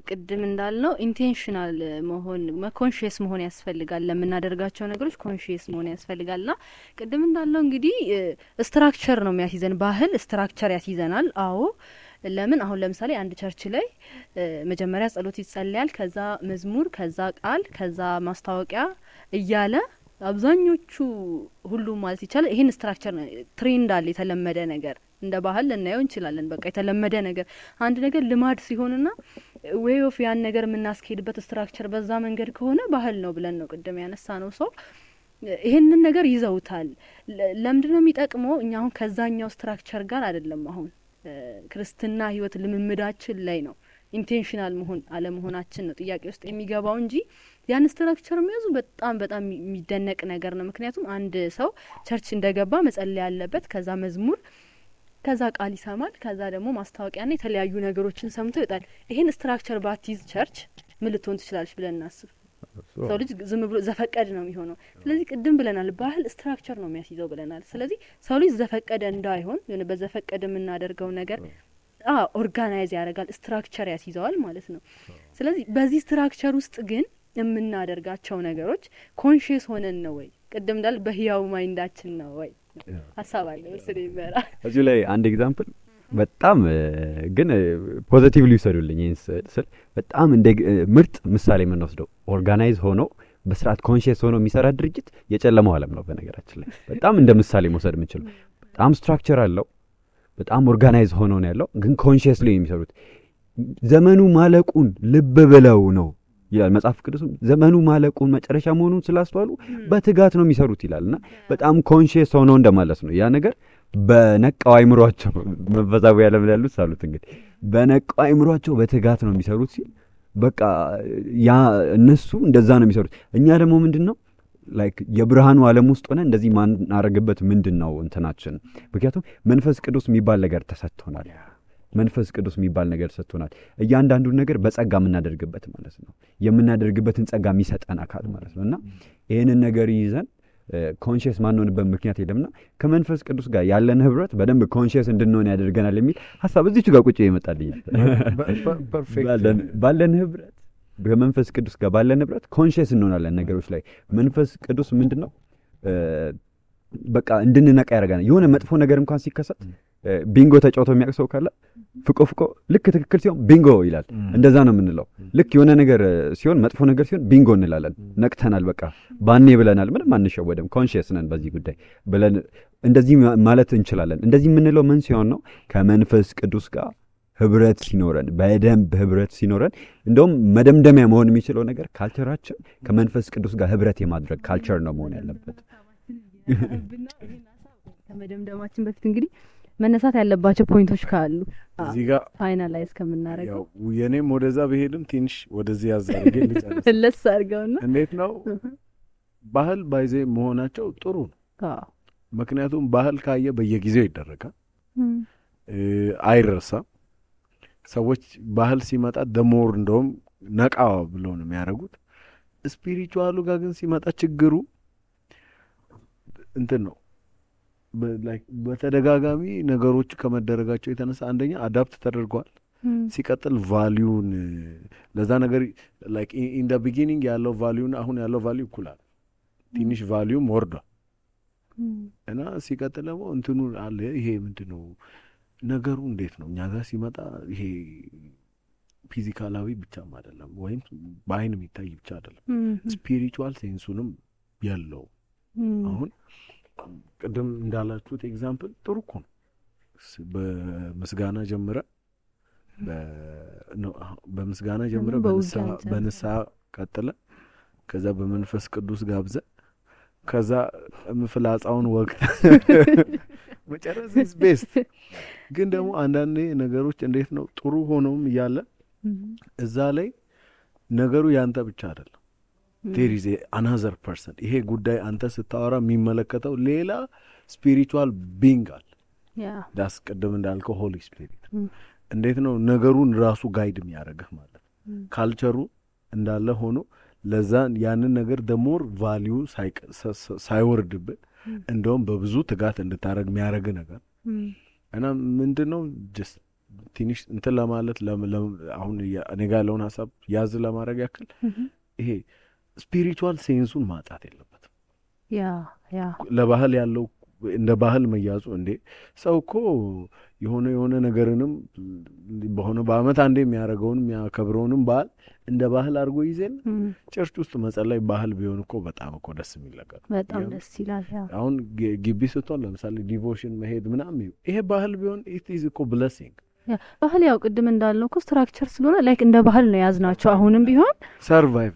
ቅድም እንዳልነው ኢንቴንሽናል መሆን ኮንሺየስ መሆን ያስፈልጋል ለምናደርጋቸው ነገሮች ኮንሺየስ መሆን ያስፈልጋልና ቅድም እንዳልነው እንግዲህ ስትራክቸር ነው የሚያስይዘን ባህል ስትራክቸር ያስይዘናል አዎ ለምን አሁን ለምሳሌ አንድ ቸርች ላይ መጀመሪያ ጸሎት ይጸልያል ከዛ መዝሙር ከዛ ቃል ከዛ ማስታወቂያ እያለ አብዛኞቹ ሁሉ ማለት ይቻላል ይሄን ስትራክቸር ትሬንድ አለ የተለመደ ነገር እንደ ባህል ልናየው እንችላለን በቃ የተለመደ ነገር አንድ ነገር ልማድ ሲሆንና ዌይ ኦፍ ያን ነገር የምናስኬድበት ስትራክቸር በዛ መንገድ ከሆነ ባህል ነው ብለን ነው ቅድም ያነሳ ነው ሰው ይሄንን ነገር ይዘውታል ለምንድነው የሚጠቅመው እኛ አሁን ከዛኛው ስትራክቸር ጋር አይደለም አሁን ክርስትና ህይወት ልምምዳችን ላይ ነው ኢንቴንሽናል መሆን አለመሆናችን ነው ጥያቄ ውስጥ የሚገባው እንጂ ያን ስትራክቸር የሚያዙ በጣም የሚደነቅ ነገር ነው ምክንያቱም አንድ ሰው ቸርች እንደገባ መጸለይ ያለበት ከዛ መዝሙር ከዛ ቃል ይሰማል ከዛ ደግሞ ማስታወቂያና የተለያዩ ነገሮችን ሰምቶ ይወጣል ይሄን ስትራክቸር ባትይዝ ቸርች ምን ልትሆን ትችላለች ብለን እናስብ ሰው ልጅ ዝም ብሎ ዘፈቀደ ነው የሚሆነው። ስለዚህ ቅድም ብለናል ባህል ስትራክቸር ነው የሚያስይዘው ብለናል። ስለዚህ ሰው ልጅ ዘፈቀደ እንዳይሆን የሆነ በዘፈቀደ የምናደርገው ነገር ኦርጋናይዝ ያደርጋል፣ ስትራክቸር ያስይዘዋል ማለት ነው። ስለዚህ በዚህ ስትራክቸር ውስጥ ግን የምናደርጋቸው ነገሮች ኮንሺየስ ሆነን ነው ወይ ቅድም እንዳል በህያው ማይንዳችን ነው ወይ ሀሳብ አለ መሰለኝ ይበራ እዚህ ላይ አንድ ኤግዛምፕል በጣም ግን ፖዚቲቭሊ ይሰሩልኝ ስል በጣም እንደ ምርጥ ምሳሌ የምንወስደው ኦርጋናይዝ ሆኖ በስርዓት ኮንሺየስ ሆኖ የሚሰራ ድርጅት የጨለማው ዓለም ነው። በነገራችን ላይ በጣም እንደ ምሳሌ መውሰድ የምንችለው በጣም ስትራክቸር አለው፣ በጣም ኦርጋናይዝ ሆኖ ነው ያለው፣ ግን ኮንሺየስሊ የሚሰሩት ዘመኑ ማለቁን ልብ ብለው ነው ይላል መጽሐፍ ቅዱስ። ዘመኑ ማለቁን መጨረሻ መሆኑን ስላስተዋሉ በትጋት ነው የሚሰሩት ይላልና በጣም ኮንሺየስ ሆኖ እንደማለት ነው። ያ ነገር በነቃው አይምሯቸው መንፈሳዊ ዓለም ላይ ያሉት ሳሉት እንግዲህ በነቃው አይምሯቸው በትጋት ነው የሚሰሩት ሲል በቃ ያ እነሱ እንደዛ ነው የሚሰሩት። እኛ ደግሞ ምንድነው ላይክ የብርሃኑ ዓለም ውስጥ ሆነ እንደዚህ ማናረግበት ምንድነው እንትናችን? ምክንያቱም መንፈስ ቅዱስ የሚባል ነገር ተሰጥቶናል። መንፈስ ቅዱስ የሚባል ነገር ሰጥቶናል። እያንዳንዱን ነገር በጸጋ የምናደርግበት ማለት ነው። የምናደርግበትን ጸጋ የሚሰጠን አካል ማለት ነውና ይሄንን ነገር ይዘን ኮንሺየስ ማንሆንበት ምክንያት የለምና ከመንፈስ ቅዱስ ጋር ያለን ህብረት በደንብ ኮንሺየስ እንድንሆን ያደርገናል የሚል ሐሳብ እዚች ጋር ቁጭ ይመጣልኝ። ባለን ህብረት በመንፈስ ቅዱስ ጋር ባለን ህብረት ኮንሺየስ እንሆናለን ነገሮች ላይ። መንፈስ ቅዱስ ምንድነው በቃ እንድንነቃ ያደርጋናል። የሆነ መጥፎ ነገር እንኳን ሲከሰት ቢንጎ ተጫውቶ የሚያቅሰው ካለ ፍቆ ልክ ትክክል ሲሆን ቢንጎ ይላል። እንደዛ ነው የምንለው። ልክ የሆነ ነገር ሲሆን መጥፎ ነገር ሲሆን ቢንጎ እንላለን። ነቅተናል፣ በቃ ባኔ ብለናል፣ ምንም አንሸወድም፣ ኮንሺየስ ነን በዚህ ጉዳይ ብለን እንደዚህ ማለት እንችላለን። እንደዚህ የምንለው ምን ሲሆን ነው? ከመንፈስ ቅዱስ ጋር ህብረት ሲኖረን፣ በደንብ ህብረት ሲኖረን። እንደውም መደምደሚያ መሆን የሚችለው ነገር ካልቸራችን ከመንፈስ ቅዱስ ጋር ህብረት የማድረግ ካልቸር ነው መሆን ያለበት። ከመደምደማችን በፊት እንግዲህ መነሳት ያለባቸው ፖይንቶች ካሉ እዚህ ጋር ፋይናላይዝ ከምናደርገው ያው የኔም ወደዛ በሄድም ትንሽ ወደዚህ ያዛርገ ልጨርስ ለስ አድርገውና እንዴት ነው ባህል ባይዜ መሆናቸው ጥሩ ነው። ምክንያቱም ባህል ካየ በየጊዜው ይደረጋል፣ አይረሳም። ሰዎች ባህል ሲመጣ ደሞር እንደውም ነቃ ብለው ነው የሚያደርጉት። ስፒሪቹዋሉ ጋር ግን ሲመጣ ችግሩ እንትን ነው ላይክ በተደጋጋሚ ነገሮች ከመደረጋቸው የተነሳ አንደኛ አዳፕት ተደርጓል፣ ሲቀጥል ቫልዩን ለዛ ነገር ላይክ ኢን ዘ ቢጊኒንግ ያለው ቫልዩን አሁን ያለው ቫልዩ እኩላል፣ ትንሽ ቫልዩም ወርዷል። እና ሲቀጥል ደግሞ እንትኑ አለ። ይሄ ምንድነው ነገሩ እንዴት ነው እኛ ጋር ሲመጣ ይሄ ፊዚካላዊ ብቻም አይደለም ወይም በአይን የሚታይ ብቻ አይደለም፣ ስፒሪቹዋል ሴንሱንም ያለው አሁን ቅድም እንዳላችሁት ኤግዛምፕል ጥሩ እኮ ነው። በምስጋና ጀምረ በምስጋና ጀምረ በንስሐ ቀጥለ ከዛ በመንፈስ ቅዱስ ጋብዘ ከዛ ፍላጻውን ወቅት መጨረስ is best። ግን ደግሞ አንዳንዴ ነገሮች እንዴት ነው ጥሩ ሆነውም እያለ እዛ ላይ ነገሩ ያንተ ብቻ አይደለም። there is another person። ይሄ ጉዳይ አንተ ስታወራ የሚመለከተው ሌላ ስፒሪቹዋል ቢንግ አለ። ዳስ ቀደም እንዳልከው ሆሊ ስፒሪት እንዴት ነው ነገሩን ራሱ ጋይድ የሚያደርግህ ማለት ካልቸሩ እንዳለ ሆኖ ለዛ ያንን ነገር ደሞር ቫልዩ ሳይወርድብህ እንደውም በብዙ ትጋት እንድታረግ የሚያደርግ ነገር እና ምንድነው ጀስት ትንሽ እንትን ለማለት አሁን እኔ ጋር ያለውን ሐሳብ ያዝ ለማድረግ ያክል ይሄ ስፒሪቹዋል ሴንሱን ማጣት የለበትም። ያ ለባህል ያለው እንደ ባህል መያዙ እንዴ ሰው እኮ የሆነ ነገርንም በሆነ በአመት አንዴ የሚያደርገውን የሚያከብረውንም ባህል እንደ ባህል አድርጎ ይዘን ቸርች ውስጥ መጸለይ ባህል ቢሆን እኮ በጣም እኮ ደስ የሚል ነገር በጣም ደስ ይላል። አሁን ግቢ ስትሆን ለምሳሌ ዲቮሽን መሄድ ምናምን ይሄ ባህል ቢሆን it is እኮ blessing። ባህል ያው ቅድም እንዳልነው እኮ ስትራክቸር ስለሆነ ላይክ እንደ ባህል ነው ያዝናቸው። አሁንም ቢሆን ሰርቫይቭ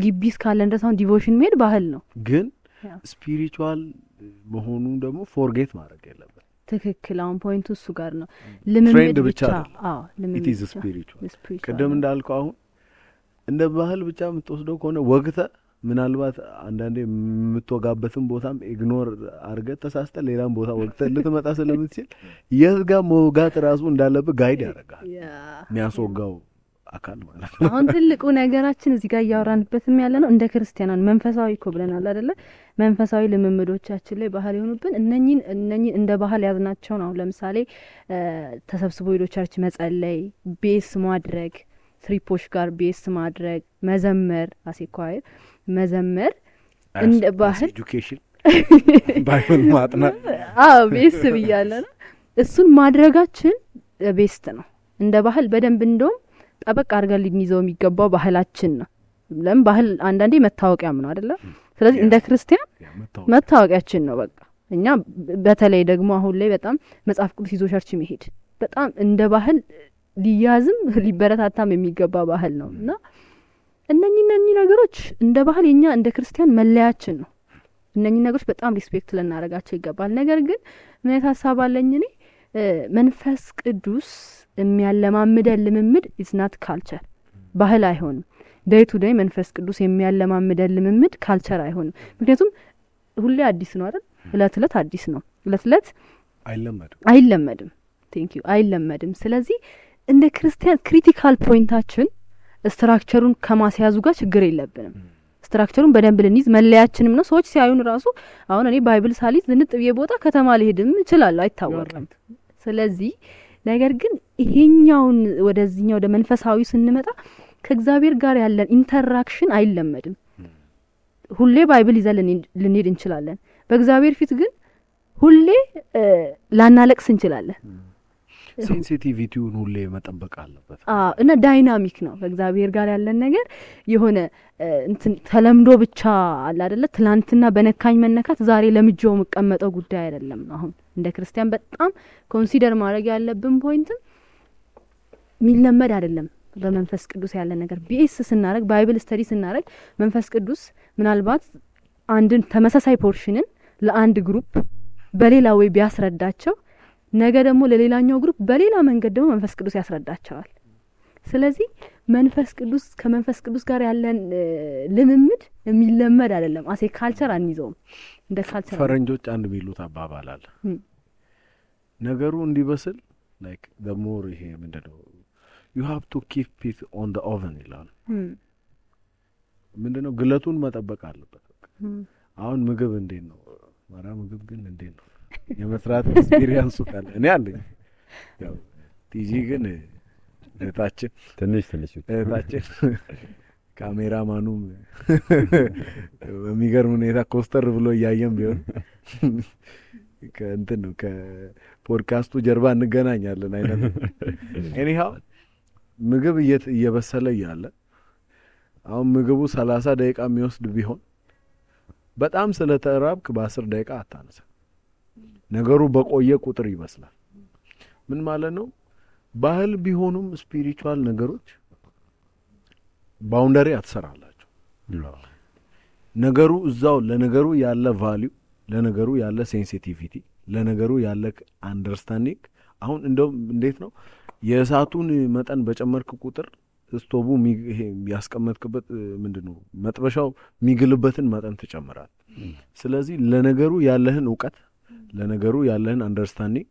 ግቢ እስካለን ድረስ አሁን ዲቮሽን መሄድ ባህል ነው። ግን ስፒሪቹዋል መሆኑ ደግሞ ፎርጌት ማድረግ የለበት። ትክክል። አሁን ፖይንቱ እሱ ጋር ነው። ልምምድ ብቻ ልምምድ it is spiritual። ቅድም እንዳልከው አሁን እንደ ባህል ብቻ የምትወስደው ከሆነ ወግተ ምናልባት አንዳንዴ የምትወጋበትን ቦታም ኢግኖር አድርገህ ተሳስተ ሌላም ቦታ ወግተ ልትመጣ ስለምትችል የት ጋር መውጋት ራሱ እንዳለብህ ጋይድ ያደርጋል። የሚያስወጋው አካል ማለት ነው። አሁን ትልቁ ነገራችን እዚህ ጋር እያወራንበትም ያለ ነው እንደ ክርስቲያናን መንፈሳዊ እኮ ብለናል አይደለ? መንፈሳዊ ልምምዶቻችን ላይ ባህል የሆኑብን እነኚህን እንደ ባህል ያዝናቸውን አሁን ለምሳሌ ተሰብስቦ ሄዶ ቸርች መጸለይ፣ ቤስ ማድረግ፣ ትሪፖች ጋር ቤስ ማድረግ፣ መዘመር፣ አሴኳይ መዘመር እንደ ባህል ኤጁኬሽን ባይብል ማጥናት ቤስ ብያለ ነው። እሱን ማድረጋችን ቤስት ነው እንደ ባህል በደንብ እንደውም ጠበቅ አድርገን ልንይዘው የሚገባው ባህላችን ነው። ለምን ባህል አንዳንዴ መታወቂያም ነው አይደለ? ስለዚህ እንደ ክርስቲያን መታወቂያችን ነው። በቃ እኛ በተለይ ደግሞ አሁን ላይ በጣም መጽሐፍ ቅዱስ ይዞ ቸርች መሄድ በጣም እንደ ባህል ሊያዝም ሊበረታታም የሚገባ ባህል ነው እና እነኚህ ነገሮች እንደ ባህል የኛ እንደ ክርስቲያን መለያችን ነው። እነኚህ ነገሮች በጣም ሪስፔክት ልናደርጋቸው ይገባል። ነገር ግን ምን አይነት ሀሳብ አለኝ እኔ መንፈስ ቅዱስ የሚያለማምደን ልምምድ ኢዝ ናት ካልቸር ባህል አይሆንም። ዴይ ቱ ዴይ መንፈስ ቅዱስ የሚያለማምደን ልምምድ ካልቸር አይሆንም። ምክንያቱም ሁሌ አዲስ ነው አይደል? እለት አዲስ ነው። እለት አይለመድም። ቴንክ ዩ አይለመድም። ስለዚህ እንደ ክርስቲያን ክሪቲካል ፖይንታችን ስትራክቸሩን ከማስያዙ ጋር ችግር የለብንም። ስትራክቸሩን በደንብ ልንይዝ መለያችንም ነው። ሰዎች ሲያዩን ራሱ አሁን እኔ ባይብል ሳሊዝ ዝንጥ ብዬ ቦታ ከተማ ልሄድም እችላለሁ አይታወቅም። ስለዚህ ነገር ግን ይሄኛውን ወደዚህኛው ወደ መንፈሳዊ ስንመጣ ከእግዚአብሔር ጋር ያለን ኢንተራክሽን አይለመድም። ሁሌ ባይብል ይዘን ልንሄድ እንችላለን። በእግዚአብሔር ፊት ግን ሁሌ ላናለቅስ እንችላለን። ሴንሲቲቪቲውን ሁሌ መጠበቅ አለበት እና ዳይናሚክ ነው ከእግዚአብሔር ጋር ያለን ነገር የሆነ እንትን ተለምዶ ብቻ አለ አይደለ? ትላንትና በነካኝ መነካት ዛሬ ለምጆው መቀመጠው ጉዳይ አይደለም። አሁን እንደ ክርስቲያን በጣም ኮንሲደር ማድረግ ያለብን ፖይንትም ሚለመድ አይደለም። በመንፈስ ቅዱስ ያለ ነገር ቢኤስ ስናረግ ባይብል ስተዲ ስናረግ መንፈስ ቅዱስ ምናልባት አንድን ተመሳሳይ ፖርሽንን ለአንድ ግሩፕ በሌላ ወይ ቢያስረዳቸው ነገ ደግሞ ለሌላኛው ግሩፕ በሌላ መንገድ ደግሞ መንፈስ ቅዱስ ያስረዳቸዋል። ስለዚህ መንፈስ ቅዱስ ከመንፈስ ቅዱስ ጋር ያለን ልምምድ የሚለመድ አይደለም። አሴ ካልቸር አንይዘውም እንደ ካልቸር። ፈረንጆች አንድ ቢሉት አባባል አለ ነገሩ እንዲበስል ላይክ the more ይሄ ምንድነው you have to keep it on the oven ይላል። ምንድነው ግለቱን መጠበቅ አለበት። አሁን ምግብ እንዴት ነው ማራ ምግብ ግን እንዴት ነው የመስራት ኤክስፒሪየንሱ ካለ እኔ አለኝ። ያው ቲጂ ግን እታችን ትንሽ እታችን ካሜራማኑም በሚገርም ሁኔታ ኮስተር ብሎ እያየም ቢሆን ከእንትን ነው ከፖድካስቱ ጀርባ እንገናኛለን አይነት ኤኒሃው ምግብ እየበሰለ ያለ አሁን ምግቡ 30 ደቂቃ የሚወስድ ቢሆን በጣም ስለተራብክ በ10 ደቂቃ አታነሳ። ነገሩ በቆየ ቁጥር ይመስላል። ምን ማለት ነው? ባህል ቢሆኑም ስፒሪቹዋል ነገሮች ባውንደሪ አትሰራላችሁ። ነገሩ እዛው ለነገሩ ያለ ቫልዩ፣ ለነገሩ ያለ ሴንሲቲቪቲ፣ ለነገሩ ያለ አንደርስታንዲንግ አሁን እንደው እንዴት ነው የእሳቱን መጠን በጨመርክ ቁጥር ስቶቡ ይሄ ያስቀመጥክበት ምንድነው መጥበሻው ሚግልበትን መጠን ተጨምራል። ስለዚህ ለነገሩ ያለህን ዕውቀት ለነገሩ ያለህን አንደርስታንዲንግ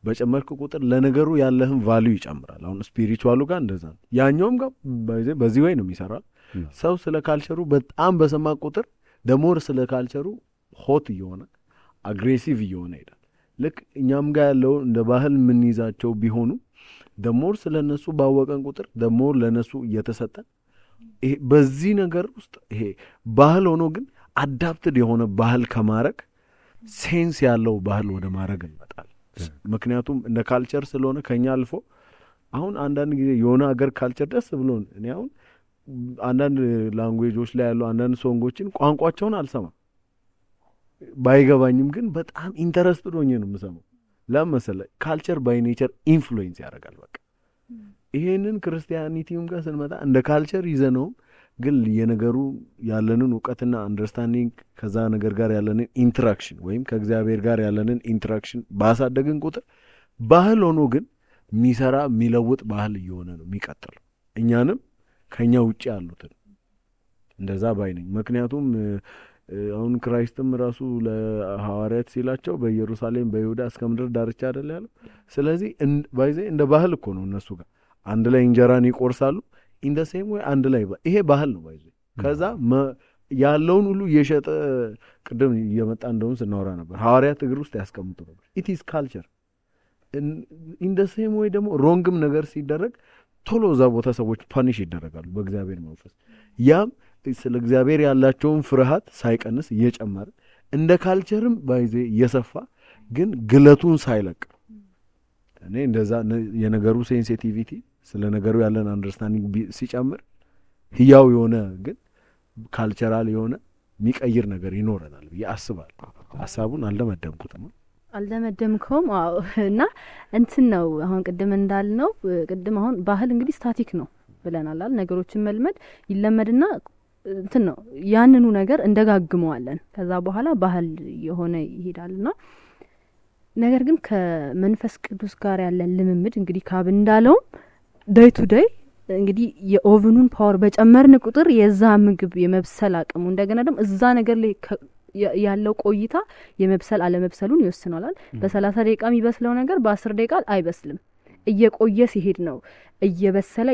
በጨመርክ ቁጥር ለነገሩ ያለህን ቫልዩ ይጨምራል። አሁን ስፒሪቹዋሉ ጋር እንደዛ ነው። ያኛውም ጋር በዚህ ወይ ነው የሚሰራው። ሰው ስለ ካልቸሩ በጣም በሰማ ቁጥር ደሞር ስለ ካልቸሩ ሆት እየሆነ አግሬሲቭ እየሆነ ይላል። ልክ እኛም ጋር ያለው እንደ ባህል ምን ይዛቸው ቢሆኑ ደሞር ስለነሱ ባወቀን ቁጥር ደሞር ለነሱ እየተሰጠን ይሄ በዚህ ነገር ውስጥ ይሄ ባህል ሆኖ ግን አዳፕትድ የሆነ ባህል ከማረግ ሴንስ ያለው ባህል ወደ ማረግ እንመጣለን። ምክንያቱም እንደ ካልቸር ስለሆነ ከኛ አልፎ አሁን አንዳንድ ጊዜ የሆነ ሀገር ካልቸር ደስ ብሎን እኔ አሁን አንዳንድ ላንጉዌጆች ላይ ያለው አንዳንድ ሶንጎችን ቋንቋቸውን አልሰማም ባይገባኝም ግን በጣም ኢንተረስትድ ሆኜ ነው የምሰማው። ለምሳሌ ካልቸር ባይ ኔቸር ኢንፍሉዌንስ ያደርጋል። በቃ ይሄንን ክርስቲያኒቲውም ጋር ስንመጣ እንደ ካልቸር ይዘነው ግን የነገሩ ያለንን ዕውቀትና አንደርስታንዲንግ ከዛ ነገር ጋር ያለንን ኢንተራክሽን ወይም ከእግዚአብሔር ጋር ያለንን ኢንተራክሽን ባሳደግን ቁጥር ባህል ሆኖ ግን የሚሰራ የሚለውጥ ባህል እየሆነ ነው የሚቀጥለው። እኛንም ከኛ ውጪ ያሉትን እንደዛ ባይ ነኝ። ምክንያቱም አሁን ክራይስትም ራሱ ለሐዋርያት ሲላቸው በኢየሩሳሌም በይሁዳ እስከ ምድር ዳርቻ አይደል ያለው። ስለዚህ ባይዘ እንደ ባህል እኮ ነው እነሱ ጋር አንድ ላይ እንጀራን ይቆርሳሉ። ኢን ዘ ሴም ወይ አንድ ላይ ይሄ ባህል ነው ባይዘ ከዛ ያለውን ሁሉ እየሸጠ ቅድም እየመጣ እንደውም ስናወራ ነበር ሐዋርያት እግር ውስጥ ያስቀምጡ ነበር ኢት ኢዝ ካልቸር ኢን ዘ ሴም ወይ ደግሞ ሮንግም ነገር ሲደረግ ቶሎ እዛ ቦታ ሰዎች ፓኒሽ ይደረጋሉ በእግዚአብሔር መንፈስ ያም ስለ እግዚአብሔር ያላቸውን ፍርሃት ሳይቀንስ እየጨመረ እንደ ካልቸርም ባይዜ እየሰፋ ግን ግለቱን ሳይለቅ እኔ እንደዛ የነገሩ ሴንሲቲቪቲ ስለ ነገሩ ያለን አንደርስታንዲንግ ሲጨምር ህያው የሆነ ግን ካልቸራል የሆነ የሚቀይር ነገር ይኖረናል ብዬ አስባለሁ። ሐሳቡን አልደመደምከውም? አዎ። እና እንትን ነው አሁን ቅድም እንዳልነው ቅድም አሁን ባህል እንግዲህ ስታቲክ ነው ብለናል አይደል? ነገሮችን መልመድ ይለመድና እንትን ነው ያንኑ ነገር እንደጋግመዋለን ከዛ በኋላ ባህል የሆነ ይሄዳልና ነገር ግን ከመንፈስ ቅዱስ ጋር ያለን ልምምድ እንግዲህ ካብ እንዳለው ዴይ ቱ ዴይ እንግዲህ የኦቨኑን ፓወር በጨመርን ቁጥር የዛ ምግብ የመብሰል አቅሙ እንደገና ደግሞ እዛ ነገር ላይ ያለው ቆይታ የመብሰል አለመብሰሉን ይወስናል። በ30 ደቂቃ የሚበስለው ነገር በ10 ደቂቃ አይበስልም። እየቆየ ሲሄድ ነው እየበሰለ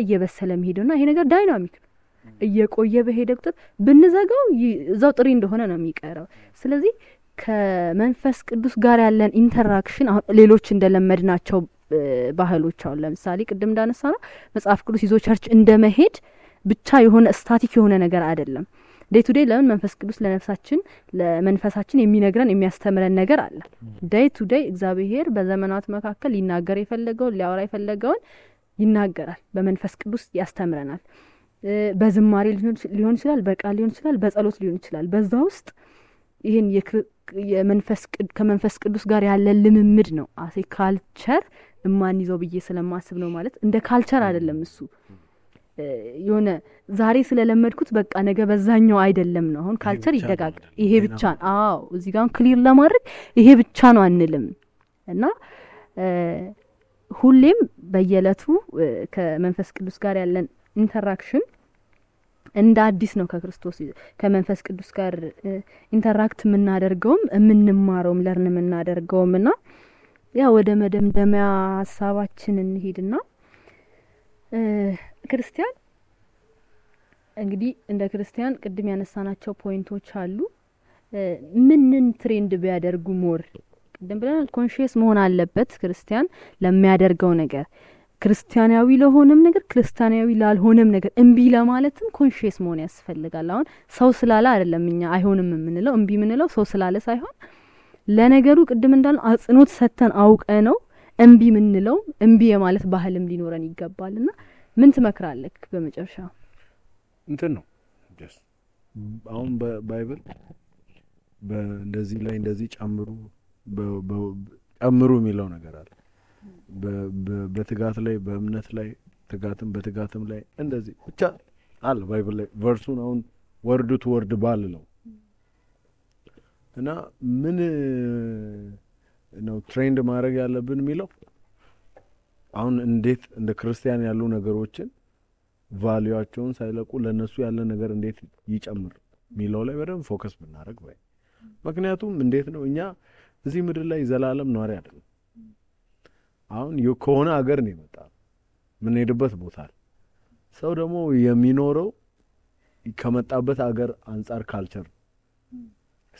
የሚሄደውና ይሄ ነገር ዳይናሚክ ነው። እየቆየ በሄደ ቁጥር ብንዘጋው እዛው ጥሪ እንደሆነ ነው የሚቀረው። ስለዚህ ከመንፈስ ቅዱስ ጋር ያለን ኢንተራክሽን አሁን ሌሎች እንደለመድናቸው ባህሎች አሁን ለምሳሌ ቅድም እንዳነሳ ነው መጽሐፍ ቅዱስ ይዞ ቸርች እንደመሄድ ብቻ የሆነ ስታቲክ የሆነ ነገር አይደለም። ዴይ ቱ ዴይ ለምን መንፈስ ቅዱስ ለመንፈሳችን የሚነግረን የሚያስተምረን ነገር አለ። ዴይ ቱ ዴይ እግዚአብሔር በዘመናት መካከል ሊናገር የፈለገውን ሊያወራ የፈለገውን ይናገራል። በመንፈስ ቅዱስ ያስተምረናል። በዝማሬ ሊሆን ይችላል፣ በቃል ሊሆን ይችላል፣ በጸሎት ሊሆን ይችላል። በዛ ውስጥ ይሄን ከመንፈስ ቅዱስ ጋር ያለ ልምምድ ነው አሴ ካልቸር እማንይዘው ብዬ ስለማስብ ነው። ማለት እንደ ካልቸር አይደለም እሱ የሆነ ዛሬ ስለለመድኩት በቃ ነገ በዛኛው አይደለም ነው። አሁን ካልቸር ይደጋጋል። ይሄ ብቻ አዎ እዚህ ጋር ክሊር ለማድረግ ይሄ ብቻ ነው አንልም እና ሁሌም በየለቱ ከመንፈስ ቅዱስ ጋር ያለን ኢንተራክሽን እንደ አዲስ ነው። ከመንፈስ ቅዱስ ጋር ኢንተራክት የምናደርገውም የምንማረውም ለርን የምናደርገውም እና ያ ወደ መደምደሚያ ሀሳባችን እንሄድና ክርስቲያን እንግዲህ እንደ ክርስቲያን ቅድም ያነሳናቸው ፖይንቶች አሉ። ምንን ትሬንድ ቢያደርጉ ሞር ቅድም ብለናል ኮንሺየስ መሆን አለበት ክርስቲያን ለሚያደርገው ነገር ክርስቲያናዊ ለሆነም ነገር ክርስቲያናዊ ላልሆነም ነገር እምቢ ለማለትም ኮንሺየስ መሆን ያስፈልጋል። አሁን ሰው ስላለ አይደለም እኛ አይሆንም የምንለው እምቢ የምንለው ሰው ስላለ ሳይሆን ለነገሩ ቅድም እንዳልነው አጽንኦት ሰተን አውቀ ነው እምቢ የምንለው እምቢ የማለት ባህልም ሊኖረን ይገባልና ምን ትመክራለህ? በመጨረሻ እንትን ነው አሁን በባይብል በእንደዚህ ላይ እንደዚህ ጨምሩ የሚለው ነገር አለ። በትጋት ላይ በእምነት ላይ በትጋትም ላይ እንደዚህ ብቻ አለ ባይብል ላይ ቨርሱን አሁን ወርድ ቱ ወርድ ባልለው እና ምን ነው ትሬንድ ማድረግ ያለብን የሚለው አሁን እንዴት እንደ ክርስቲያን ያሉ ነገሮችን ቫልዩአቸውን ሳይለቁ ለነሱ ያለ ነገር እንዴት ይጨምር የሚለው ላይ በደንብ ፎከስ ብናደርግ ባይ። ምክንያቱም እንዴት ነው እኛ እዚህ ምድር ላይ ዘላለም ኗሪ አይደለም። አሁን ከሆነ ሀገር ነው የመጣ ምን ሄድበት ቦታ ሰው ደግሞ የሚኖረው ከመጣበት ሀገር አንጻር ካልቸር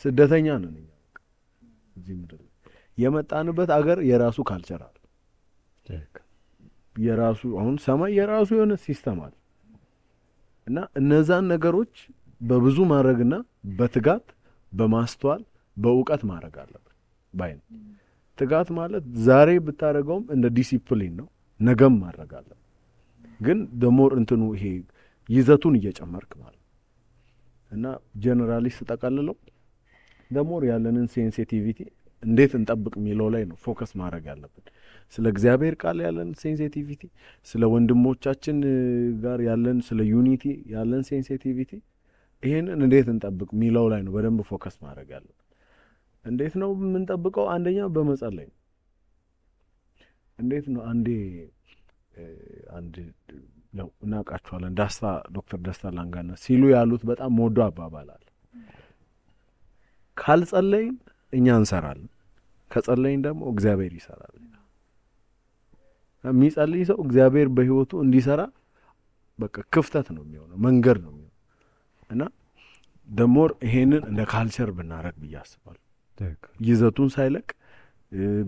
ስደተኛ ነን እኛ። እዚህ ምድር የመጣንበት ሀገር የራሱ ካልቸር አለ። የራሱ አሁን ሰማይ የራሱ የሆነ ሲስተም አለ እና እነዛን ነገሮች በብዙ ማድረግና በትጋት በማስተዋል በእውቀት ማድረግ አለበት ባይ ነው። ትጋት ማለት ዛሬ ብታረጋውም እንደ ዲሲፕሊን ነው፣ ነገም ማድረግ አለበት። ግን ደሞር እንትኑ ይሄ ይዘቱን እየጨመርክ ማለት እና ጀነራሊ ተጠቃልለው ደሞር ያለንን ሴንሲቲቪቲ እንዴት እንጠብቅ የሚለው ላይ ነው ፎከስ ማድረግ ያለብን። ስለ እግዚአብሔር ቃል ያለን ሴንሲቲቪቲ፣ ስለ ወንድሞቻችን ጋር ያለን ስለ ዩኒቲ ያለን ሴንሲቲቪቲ ይሄንን እንዴት እንጠብቅ የሚለው ላይ ነው በደንብ ፎከስ ማድረግ ያለብን። እንዴት ነው የምንጠብቀው? አንደኛ በመጸለይ ነው። እንዴት ነው አንድ ነው እናውቃቸዋለን ዶክተር ደስታ ላንጋና ሲሉ ያሉት በጣም ሞዶ አባባል አለ። ካልጸለይን እኛ እንሰራለን፣ ከጸለይን ደግሞ እግዚአብሔር ይሰራል። የሚጸልይ ሰው እግዚአብሔር በህይወቱ እንዲሰራ በቃ ክፍተት ነው የሚሆነው፣ መንገድ ነው የሚሆነው እና ደሞር ይሄንን እንደ ካልቸር ብናረግ ብዬ አስባለሁ። ይዘቱን ሳይለቅ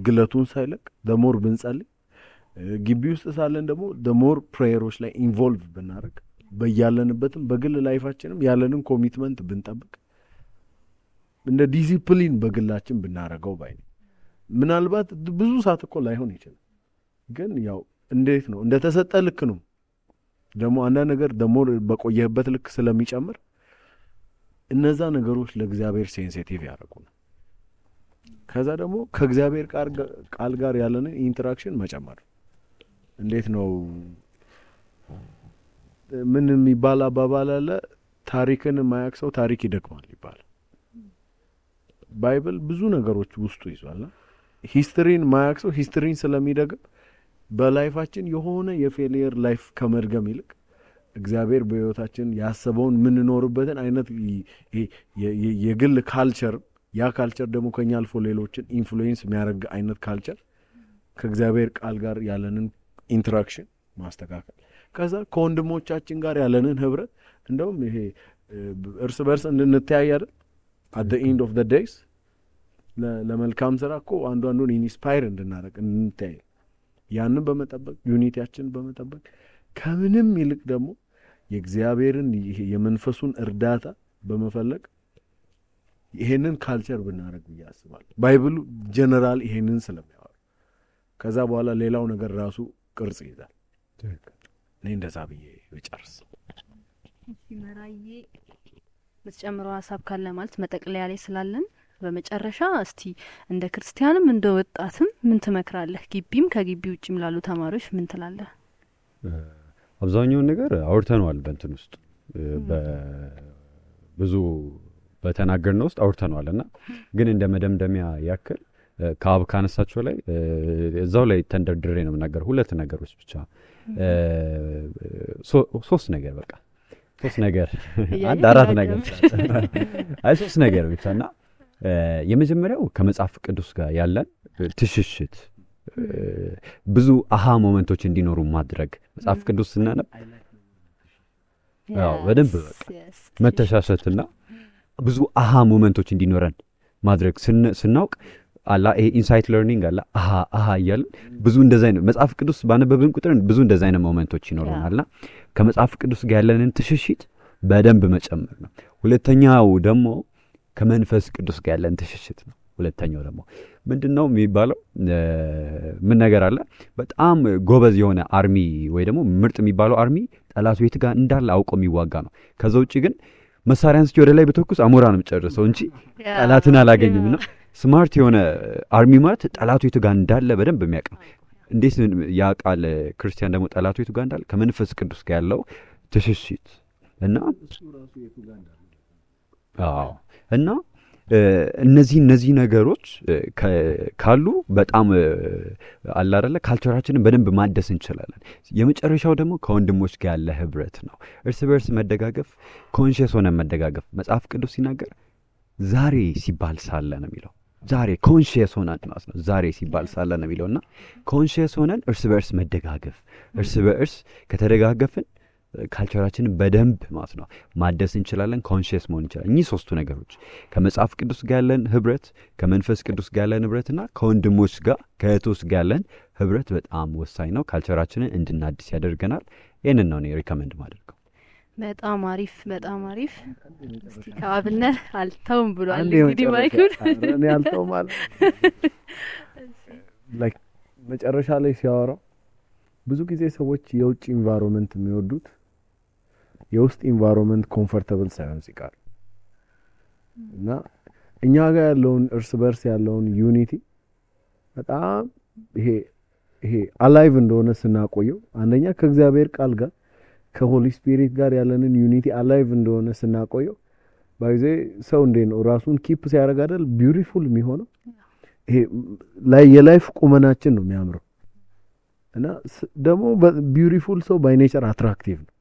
ግለቱን ሳይለቅ ደሞር ብንጸልይ ግቢ ውስጥ ሳለን ደግሞ ደሞር ፕሬየሮች ላይ ኢንቮልቭ ብናረግ በያለንበትም በግል ላይፋችንም ያለንን ኮሚትመንት ብንጠብቅ እንደ ዲሲፕሊን በግላችን ብናረገው ባይ ነው። ምናልባት ብዙ ሰዓት እኮ ላይሆን ይችላል፣ ግን ያው እንዴት ነው እንደ ተሰጠ ልክ ነው። ደግሞ አንዳንድ ነገር ደሞር በቆየህበት ልክ ስለሚጨምር እነዛ ነገሮች ለእግዚአብሔር ሴንሲቲቭ ያደርጉናል። ከዛ ደግሞ ከእግዚአብሔር ቃል ጋር ያለንን ኢንተራክሽን መጨመር። እንዴት ነው ምን የሚባል አባባል አለ፣ ታሪክን የማያውቅ ሰው ታሪክ ይደግማል ይባላል። ባይብል ብዙ ነገሮች ውስጡ ይዟል። ሂስትሪን የማያውቅ ሰው ሂስትሪን ስለሚደግም በላይፋችን የሆነ የፌሊየር ላይፍ ከመድገም ይልቅ እግዚአብሔር በህይወታችን ያሰበውን የምንኖርበትን አይነት የግል ካልቸር፣ ያ ካልቸር ደግሞ ከኛ አልፎ ሌሎችን ኢንፍሉዌንስ የሚያደርግ አይነት ካልቸር ከእግዚአብሔር ቃል ጋር ያለንን ኢንተራክሽን ማስተካከል፣ ከዛ ከወንድሞቻችን ጋር ያለንን ህብረት እንደውም ይሄ እርስ በርስ እንድንተያይ አይደል at the end of the days ለመልካም ስራ እኮ አንዱን ኢንስፓየር እንድናደርግ እንተያይ፣ ያንን በመጠበቅ ዩኒቲያችን በመጠበቅ ከምንም ይልቅ ደግሞ የእግዚአብሔርን የመንፈሱን እርዳታ በመፈለግ ይሄንን ካልቸር ብናደርግ ያስባል። ባይብሉ ጀነራል ይሄንን ስለሚያወራ ከዛ በኋላ ሌላው ነገር ራሱ ቅርጽ ይዛል። እኔ እንደዛ ብዬ ልጨርስ። መራዬ ምትጨምረው ሀሳብ ካለ ማለት መጠቅለያ ላይ ስላለን በመጨረሻ እስቲ እንደ ክርስቲያንም እንደ ወጣትም ምን ትመክራለህ? ግቢም ከግቢ ውጭም ላሉ ተማሪዎች ምን ትላለህ? አብዛኛውን ነገር አውርተነዋል። በእንትን ውስጥ ብዙ በተናገርነው ውስጥ አውርተነዋልና ግን እንደ መደምደሚያ ያክል ከአብ ካነሳቸው ላይ እዛው ላይ ተንደርድሬ ነው የምናገረው። ሁለት ነገሮች ብቻ ሶስት ነገር በቃ ሶስት ነገር አንድ አራት ነገር አይ ሶስት ነገር ብቻና የመጀመሪያው ከመጽሐፍ ቅዱስ ጋር ያለን ትሽሽት ብዙ አሃ ሞመንቶች እንዲኖሩ ማድረግ። መጽሐፍ ቅዱስ ስናነብ በደንብ መተሻሸትና ብዙ አሃ ሞመንቶች እንዲኖረን ማድረግ ስናውቅ አላ ይሄ ኢንሳይት ለርኒንግ አላ አሃ እያልን ብዙ እንደዛ አይነት መጽሐፍ ቅዱስ ባነበብን ቁጥር ብዙ እንደዛ አይነት ሞመንቶች ይኖሩናልና ከመጽሐፍ ቅዱስ ጋር ያለንን ትሽሽት በደንብ መጨመር ነው። ሁለተኛው ደግሞ ከመንፈስ ቅዱስ ጋር ያለን ትሽሽት ነው። ሁለተኛው ደግሞ ምንድነው የሚባለው ምን ነገር አለ በጣም ጎበዝ የሆነ አርሚ ወይ ደግሞ ምርጥ የሚባለው አርሚ ጠላቱ የት ጋር እንዳለ አውቆ የሚዋጋ ነው። ከዛ ውጪ ግን መሳሪያን እስኪ ወደ ላይ በተኩስ አሞራንም ጨርሰው እንጂ ጠላትን አላገኝም ነው። ስማርት የሆነ አርሚ ማለት ጠላቱ የት ጋር እንዳለ በደንብ የሚያውቅ ነው። እንዴት ያውቃል? ክርስቲያን ደግሞ ጠላቱ የት ጋር እንዳለ ከመንፈስ ቅዱስ ጋር ያለው ትሽሽት እና እና እነዚህ ነገሮች ካሉ በጣም አለ አይደለ ካልቸራችንን በደንብ ማደስ እንችላለን። የመጨረሻው ደግሞ ከወንድሞች ጋር ያለ ህብረት ነው። እርስ በርስ መደጋገፍ፣ ኮንሺየስ ሆነን መደጋገፍ። መጽሐፍ ቅዱስ ሲናገር ዛሬ ሲባል ሳለ ነው የሚለው። ዛሬ ኮንሺየስ ሆነን ማለት ነው። ዛሬ ሲባል ሳለ ነው የሚለውና ኮንሺየስ ሆነን እርስ በርስ መደጋገፍ፣ እርስ በርስ ከተደጋገፍን ካልቸራችንን በደንብ ማለት ነው ማደስ እንችላለን። ኮንሺየስ መሆን እንችላለን። እኚህ ሶስቱ ነገሮች ከመጽሐፍ ቅዱስ ጋር ያለን ህብረት፣ ከመንፈስ ቅዱስ ጋር ያለን ህብረትና ከወንድሞች ጋር ከእህቶች ጋር ያለን ህብረት በጣም ወሳኝ ነው። ካልቸራችንን እንድናድስ ያደርገናል። ይህንን ነው እኔ ሪኮመንድ ማደርገው። በጣም አሪፍ በጣም አሪፍ። እስቲ ከአብነት አልተውም ብሏል እንግዲህ ማይኩን እኔ አልተውም ማለት ላይክ መጨረሻ ላይ ሲያወራው ብዙ ጊዜ ሰዎች የውጭ ኢንቫይሮንመንት የሚወዱት የውስጥ ኢንቫይሮንመንት ኮምፎርታብል ሳይሆን ሲቀር እና እኛ ጋር ያለውን እርስ በርስ ያለውን ዩኒቲ በጣም ይሄ አላይቭ እንደሆነ ስናቆየው አንደኛ ከእግዚአብሔር ቃል ጋር ከሆሊ ስፒሪት ጋር ያለንን ዩኒቲ አላይቭ እንደሆነ ስናቆየው ባይዜ ሰው እንዴት ነው ራሱን ኪፕ ሲያደርግ አይደል ቢዩቲፉል የሚሆነው። ይሄ ላይ የላይፍ ቁመናችን ነው የሚያምረው እና ደግሞ ቢዩቲፉል ሰው ባይ ኔቸር አትራክቲቭ ነው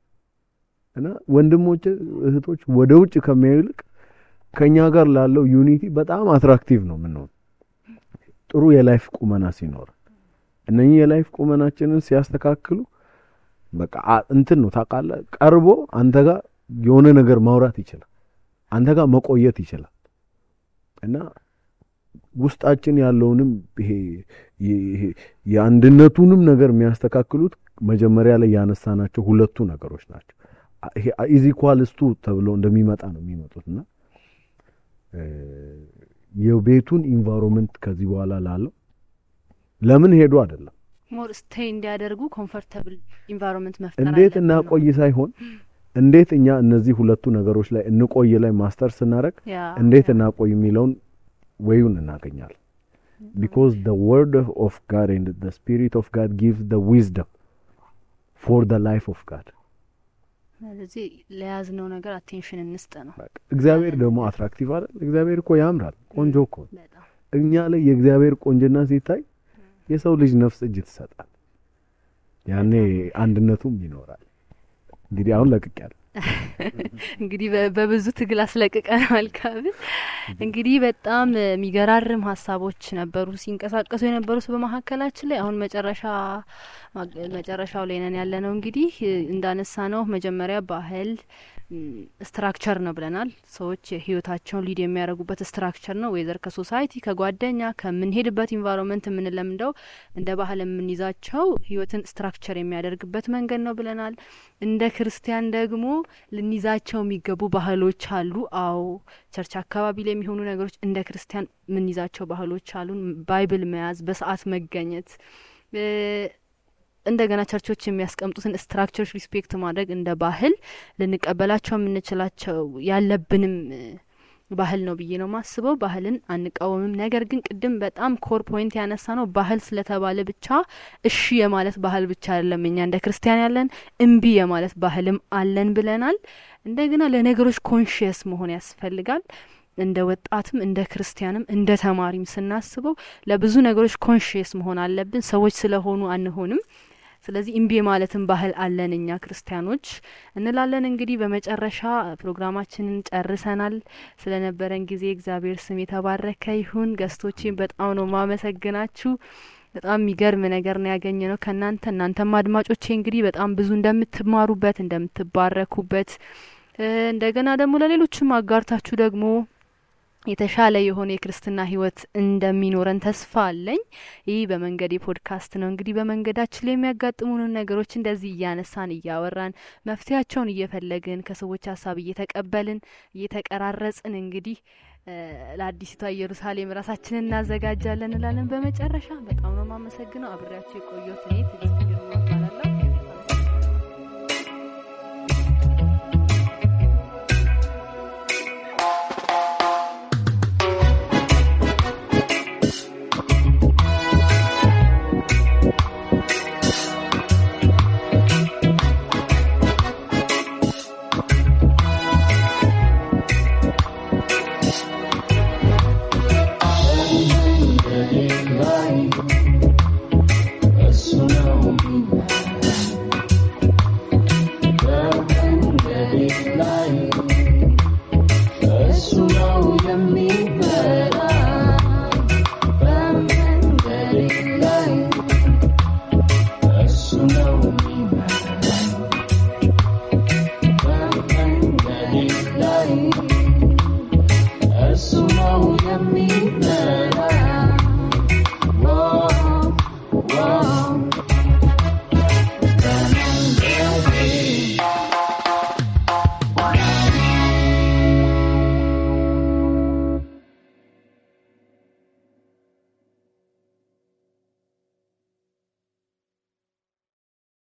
እና ወንድሞች እህቶች ወደ ውጭ ከሚያዩልቅ ከኛ ጋር ላለው ዩኒቲ በጣም አትራክቲቭ ነው ምንሆን ጥሩ የላይፍ ቁመና ሲኖር እነኚህ የላይፍ ቁመናችንን ሲያስተካክሉ በቃ እንትን ነው ታውቃለህ ቀርቦ አንተ ጋር የሆነ ነገር ማውራት ይችላል አንተ ጋር መቆየት ይችላል እና ውስጣችን ያለውንም ይሄ የአንድነቱንም ነገር የሚያስተካክሉት መጀመሪያ ላይ ያነሳናቸው ሁለቱ ነገሮች ናቸው ይሄ ኢዝ ኢኳልስ ቱ ተብሎ እንደሚመጣ ነው የሚመጡትና የቤቱን ኢንቫይሮንመንት ከዚህ በኋላ ላለው ለምን ሄዱ አይደለም ሞር ስቴይ እንዲያደርጉ ኮምፎርታብል ኢንቫይሮንመንት መፍጠር እንዴት እናቆይ ሳይሆን እንዴት እኛ እነዚህ ሁለቱ ነገሮች ላይ እንቆይ ላይ ማስተር ስናረግ እንዴት እናቆይ የሚለውን ወይውን እናገኛለን because the word of God and the spirit of God gives the wisdom for the life of God ስለዚህ ለያዝነው ነገር አቴንሽን እንስጥ ነው እግዚአብሔር ደግሞ አትራክቲቭ አይደል እግዚአብሔር እኮ ያምራል ቆንጆ እኮ እኛ ላይ የእግዚአብሔር ቆንጆና ሲታይ የሰው ልጅ ነፍስ እጅ ትሰጣል ያኔ አንድነቱም ይኖራል እንግዲህ አሁን ለቅቄያለሁ እንግዲህ በብዙ ትግል አስለቅቀናል ካብ እንግዲህ በጣም የሚገራርም ሐሳቦች ነበሩ ሲንቀሳቀሱ የነበሩት በመሐከላችን ላይ አሁን መጨረሻው ላይ ነን ያለነው እንግዲህ እንዳነሳ ነው መጀመሪያ ባህል ስትራክቸር ነው ብለናል ሰዎች ህይወታቸውን ሊድ የሚያደርጉበት ስትራክቸር ነው ወይዘር ከሶሳይቲ ከጓደኛ ከምንሄድበት ኢንቫይሮንመንት የምንለምደው እንደ ባህል የምንይዛቸው ህይወትን ስትራክቸር የሚያደርግበት መንገድ ነው ብለናል እንደ ክርስቲያን ደግሞ ልንይዛቸው የሚገቡ ባህሎች አሉ አዎ ቸርች አካባቢ ላይ የሚሆኑ ነገሮች እንደ ክርስቲያን ምንይዛቸው ባህሎች አሉ ባይብል መያዝ በሰዓት መገኘት እንደገና ቸርቾች የሚያስቀምጡትን ስትራክቸርስ ሪስፔክት ማድረግ እንደ ባህል ልንቀበላቸው የምንችላቸው ያለብንም ባህል ነው ብዬ ነው ማስበው ባህልን አንቃወምም ነገር ግን ቅድም በጣም ኮር ፖይንት ያነሳ ነው ባህል ስለተባለ ብቻ እሺ የማለት ባህል ብቻ አይደለም እኛ እንደ ክርስቲያን ያለን እምቢ የማለት ባህልም አለን ብለናል እንደገና ለነገሮች ኮንሺየስ መሆን ያስፈልጋል እንደ ወጣትም እንደ ክርስቲያንም እንደ ተማሪም ስናስበው ለብዙ ነገሮች ኮንሺየስ መሆን አለብን ሰዎች ስለሆኑ አንሆንም ስለዚህ እምቢ ማለትም ባህል አለን እኛ ክርስቲያኖች እንላለን እንግዲህ በመጨረሻ ፕሮግራማችንን ጨርሰናል ስለነበረን ጊዜ እግዚአብሔር ስም የተባረከ ይሁን ገስቶቼን በጣም ነው ማመሰግናችሁ በጣም የሚገርም ነገር ነው ያገኘነው እናንተም አድማጮቼ እንግዲህ በጣም ብዙ እንደምትማሩበት እንደምትባረኩበት እንደገና ደግሞ ለሌሎችም አጋርታችሁ ደግሞ የተሻለ የሆነ የክርስትና ህይወት እንደሚኖረን ተስፋ አለኝ ይህ በመንገድ ፖድካስት ነው እንግዲህ በመንገዳችን ላይ የሚያጋጥሙን ነገሮች እንደዚህ እያነሳን እያወራን መፍትያቸውን እየፈለግን ከሰዎች ሐሳብ እየተቀበልን እየተቀራረጽን እንግዲህ ለአዲስቷ ኢየሩሳሌም ራሳችንን እናዘጋጃለን እንላለን በመጨረሻ በጣም ነው ማመሰግነው አብሬያችሁ የቆየሁት እኔ ትዕግስት ግርማ እባላለሁ